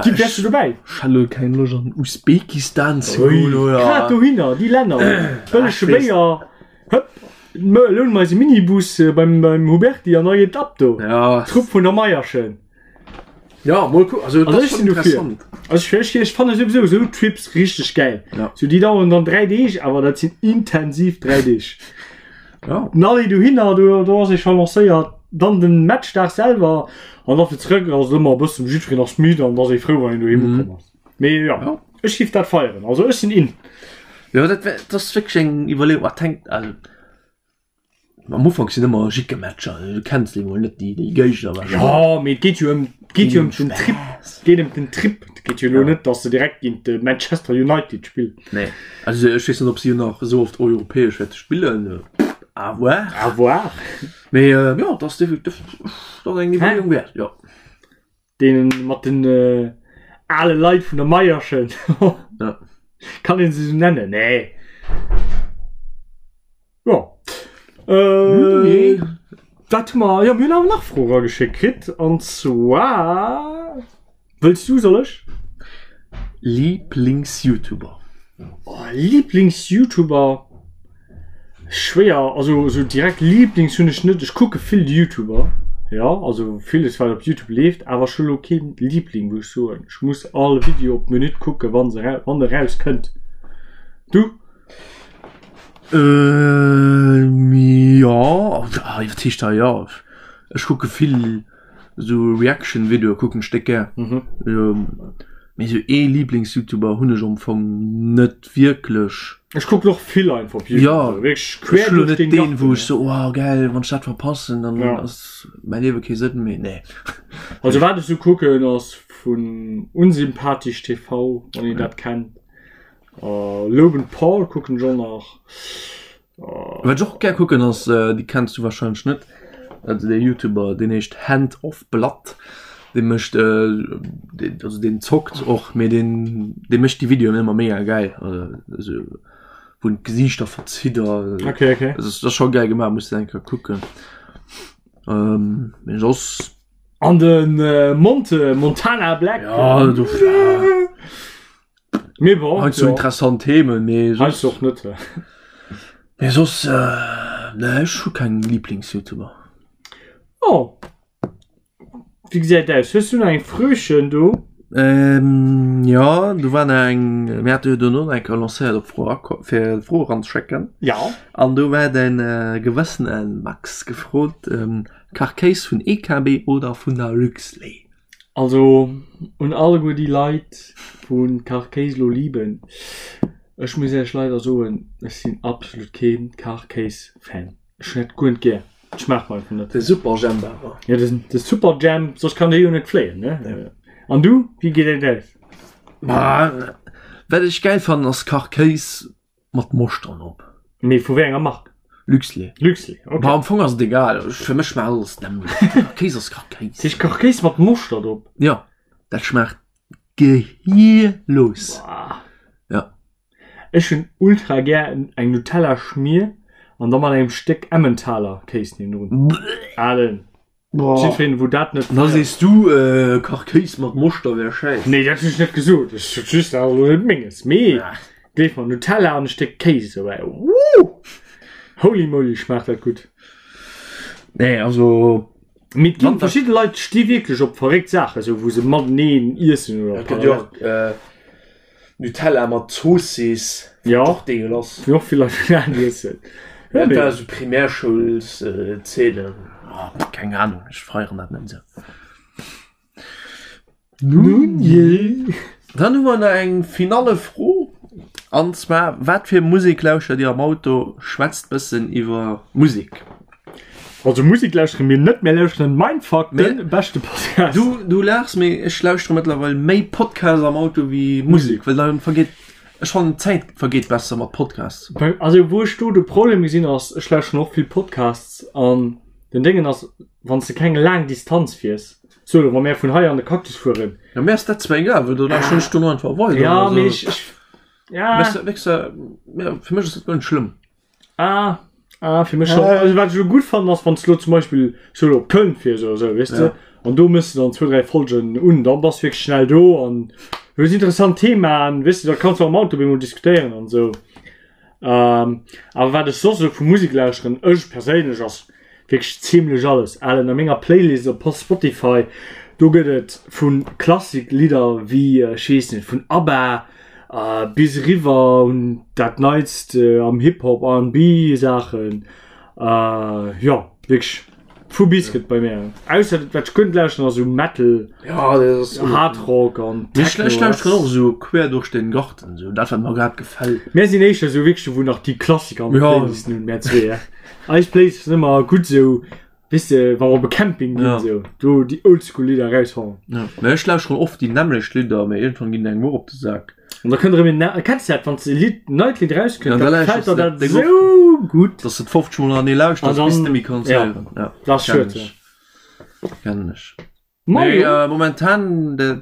Gi, wäers du dobäi?
Ech hat elo keng Loscht an Usbekistan ze goen, oder?
Grad dohinner, déi Länner, bëllege Béier, hëpp, loune mer eis e Minibus beim, beim Huberti an da geet et ab do.
Ja.
Trupp vun der Meierschen.
Ja, mol kucken. Also,
also ech sinn dofir. Also ech, ech, ech fanne souwisou esou Trips richteg gäil.
Ja.
So déi daueren dann 3 Deeg, awer dat sinn intensiv 3 Deeg.
Ja.
Den Aller dohinner, do, do ass ee scho lancéiert, dann den Matchdag selwer an da fir zrëck ass et ëmmer e bëssen, jiddwereen ass midd an da ass ee frou, wann een doheem ukomm ass. Mee ja,
Ja.
ech giff dat feieren. Also ech sinn in.
Ja, dat wär, dat ass wierklech eng Iwwerleeung. Wat hänkt, also Am Ufank sinn ëmmer Jickematcher, du kenns déi mol net déi déi Géigner
wahrscheinlech. Ja, mee et geet jo ëm geet jo ëm den Trip, geet ëm den Trip. Et geet jo elo net, datt se direkt géint de Manchester United spillen.
Nee, also ech weess net, ob si nach esou oft europäesch wäerte spillen. À voir.
À voir.
Mee jo, dat ass definitiv dat ass eng Iwwerleeung wäert, jo.
Deenen mat den ale Leit vun der Meierschen.
Ja.
Kann een se esou nennen? Nee. Ja. Äh,
Nee.
Wat hu mer? Ja, mir hunn awer nach Froe rageschéckt kritt. An zwar. Wëlls du, soll ech?
Lieblings-YouTuber.
Oh, Lieblings-YouTuber. Schwéier, also sou direkt Lieblings hunn ech net. Ech kucke vill YouTuber. Jo, also villes wat op Youtube leeft, awer ech hu lo keen Liebling wou ech soen, ech muss all Video op d'Minutt kucken wann se wann e raus kënnt. Du?
Jo, wat heescht da jo? Ech kucke vill esou Reaction Videoe kucken ech déck gär. Mee esou ee Lieblings-Youtuber hunn ech am Fong net wierklech.
Ech kucken och vill einfach op
YouTube. Ja, wierklech quer duerch den Garten. Wou ech so oh geil, wann ech dat verpassen, dann ja. ass mäi Liewe kee Sënn méi. Nee.
Also wat ech sou kucken ass vun Unsympathisch TV, wann een ja. dat kennt. Uh, Logan Paul kucken ech och nach.
Wat ech och gär kucken ass, déi kenns du wahrscheinlech net, also dee Youtuber deen heescht Hand of Blood, dee mécht also deen zockt och, mee deen dee mécht déi Videoen ëmmer mega gäil, also wou en d'Gesiichter verzitt a
Okay, okay.
dat ass scho gäil gemaach, muss de eng Kéier kucken. Mee soss.
An de Monte, Montana Black.
Ja, do.
Mee bon,
Heiansdo
ja.
interessant Themen, mee soss.
Heiansdo och net.
Mee soss, äh, nee, ech hu keng Lieblings-YouTuber.
Oh. Wéi gesäit aus? Hues du nach eng Fröchen do?
Ähm, ja, do war nach eng, mir hate jo dono nach eng Kéier lancéiert op Fro erako fir Froe eranzeschécken.
Ja.
An do war den äh, gewëssene Max gefrot, ähm, Kachkéis vun EKB oder vun der Luxlait?
Also un alleguer déi Leit wou Kachkéis lo liben, ech muss iech leider soen, ech sinn absolut keen Kachkéis Fan. Ech hunn dat guer net gär, et schmaacht mer einfach net.
De Superjhemp awer.
Jo de de Superjhemp, soss kann dee jo net fléien ne. An du, wéi geet et aus?
Ma wat ech gäil fannen ass Kachkéis Mat Moschtern op.
Mee vu wéi enger Mark?
Luxlait.
Luxlait, ok.
Ma am Fong ass et egal, fir mech schmaacht alles d'nämmlecht. Kachkéis ass Kachkéis.
Dat heescht Kachkéis mat Moschtert op?
Jo, dat schmaacht gehirlos.
Boah.
Ja.
Ech hunn ultra gär eng Nutella Schmier an da mat engem Stéck Emmentaler Kéis niewendrun. Alen. Jiddwereen wou dat net
Da sees du äh, Kachkéis mat Moschter wär schäiss.
Nee, dat hunn ech net gesot. Ech sot just, dat ass elo net menges. Mee gleef mer, Nutella an e Stéck Kéis dobäi, wouh! Holy moly, schmaacht dat gutt.
Nee, also.
Mee et ginn verschidde Leit sti wierklech op verréckt Saachen, esou wou se mateneen iessen oder.
Et gëtt jo och äh, Nutella mat Zoossiss.
Ja.
Och deegelass.
Wéi och vill Leit vegan iessen.
Ja, dat war esou Primärschoulszeenen. Oh, keng Ahnung, ech feieren dat net esou.
Nun jee.
Dann hu mer nach eng finale Fro. An zwar, wat fir Musek lauschtert Dir am Auto? Schwätzt bëssen iwwer Musek.
Also Musik lauschtere mir net, mir lauschteren Mindfuck, den beschte Podcast.
Du, du laachs, mee ech lauschtere mëttlerweil méi Podcasts am Auto wéi Musek, well dann vergeet, ech fannen d'Zäit vergeet besser mat Podcasts.
Also wou ech do de Problem gesinn ass, ech lauschteren och vill Podcasts an den Déngen ass, wann s de keng laang Distanz fiers, sou elo wa mär vun hei an de Cactus fueren.
Ja mir ass dat zwar egal, well do lauschteren ech dono einfach weider.
Ja, mee ech, ech, ja.
Wéchs, wéchs, ja, fir mech ass dat guer net schlëmm.
Ah, ah, fir mech schon. Also, wat ech elo gutt fannen, ass, wann s du elo zum Beispill so elo op Köln fiers oder sou, weess de, an do mëss de dann zwou, dräi Folgen un, dann bass du wierklech schnell do an hues interessant Themaen, weess de, da kanns du am Auto op eemol diskutéieren an sou. Ähm, awer wat ech soss esou vu Musek lauschteren, ech perséinlech, ass Wierklech zimlech alles. Alen, a menger Playlist op Spotify, do gëtt et vu Klassik-Lidder wéi, ech weess net, vun ABBA bis eriwwer un dat Neitst am Hip-Hop, R&B Saachen. Jo, wierklech vu bis gëtt bei mär. Ausser wat ech guer net lauschteren ass esou Metal, Hard Rock an
Techno. Ech lauschteren och esou quer duerch den Garten, esou dat wat mer grad gefält.
Mär sinn éischter esou wierklech wou nach déi Klassiker an de Playlisten hunn, mär zwee. Eis Playlist ass ëmmer gutt esou, weess de, wa mer op e Camping ginn,
Ja.
esou, do déi Oldschool Lidder eraushauen.
Ja. Mä ech lauschteren oft déi nämmlecht Lidder, mä iergendwann ginn engem och op de Sak.
An da kënnt erëm een, ne- kenns de dat, wann s de e Lidd, neit Lidd erauskënnt,
Ja, da
da
lauschters
gefält der
de
dat
Ding och.
esou gutt.
Dass de et 50 Mol hanneree lauschters,
An
bis
dann-
de méi kanns
ja.
héieren. Ja,
Dat ass
kennen
schued,
ech.
ja.
Kennen ech.
Ma
Mee
jo.
äh, momentan dat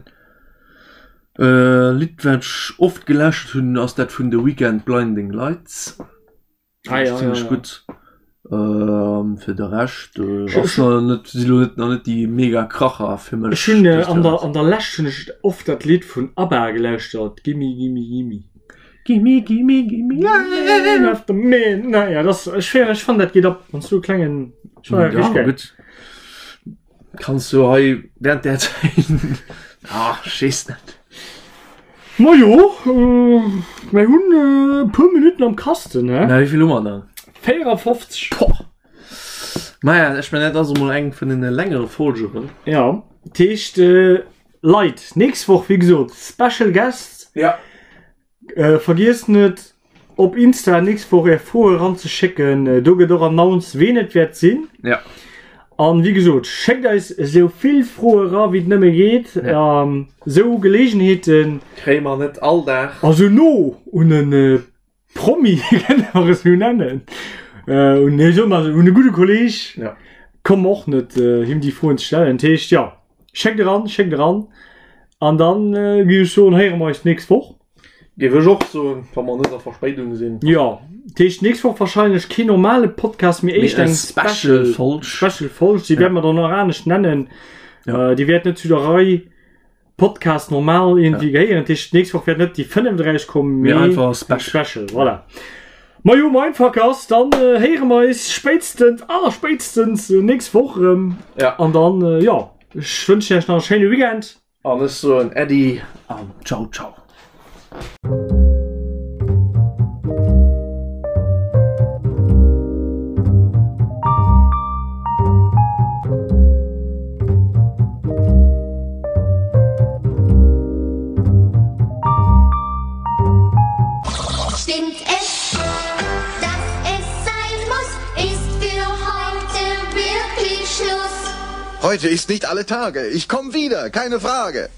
äh, Lidd, wat ech oft gelauschtert hunn, ass dat vun The Weeknd, Blinding Lights.
Ah, ja,
ziemlich
ja, ja.
gut. Ähm, fir de Rescht äh, ass nach net, si lo net, nach net déi mega Kracher fir mech.
Ech hunn äh, an der, an der Lescht hunn ech oft dat Lidd vun ABBA gelauschtert, Gimme, gimme, gimme.
Gimme, gimme, gimme, yeah.
After midnight. Ja, das, ech, ech fand dat geet ab, wann du klengen, ech fand dat
Ja,
richtig geil.
gutt. Kanns du hei während der Zäit ah, ech weess net.
Majo, mir hunn e puer Minutten am Kasten, he?
Na, wéi vill hu mer dann?
54.
Poh! Maja, ech mengen, dat ass emol eng vun den längere Folgeren.
Ja, dat heescht, Leit, nächst Woch, wéi gesot, Special Guest.
Ja.
Vergiesst net op Insta nächst Woch är Froe ranzeschécken. Do gëtt och announced ween et wäert sinn.
Ja.
An wéi gesot, schéckt eis esou vill Froe ra wéi et nëmme geet.
Ja.
Esou Geleegenheeten.
Kréie mer net all Dag.
Also no un e Promi, kënne mer esou nennen, un, nee, soe mer un e gudde Kolleg.
Ja.
Komme och net him déi Froen ze stellen. Dat heescht, jo, schéckt eran, schéckt eran. An dann géif ech soen, héiere mer eis d'nächst Woch.
Géif ech och soen, wa mer net a Verspéidung sinn.
Jo, dat heescht d'nächst Woch wahrscheinlech keen normale Podcast, mee éischt eng
Special Folg.
Special Folg, déi wäerte mer dann och anescht nennen. Déi wäert net zu der Rei Podcast normal irgendwie gehéieren. Dat heescht, d'nächst Woch wäert net déi 35 kommen,
mee einfach e
Special. Special, voilà. Majo, Mindfuckers, dann héiere mer eis spéitstens, allerspéitstens nächst Woch erëm.
Ja.
An dann, jo. Ech wënschen iech nach e schéine Weekend.
An ech soen Äddi an Ciao ciao.
Stimmt es, dass es sein muss, ist für heute wirklich Schluss.
Heute ist nicht alle Tage. Ich komm wieder, keine Frage.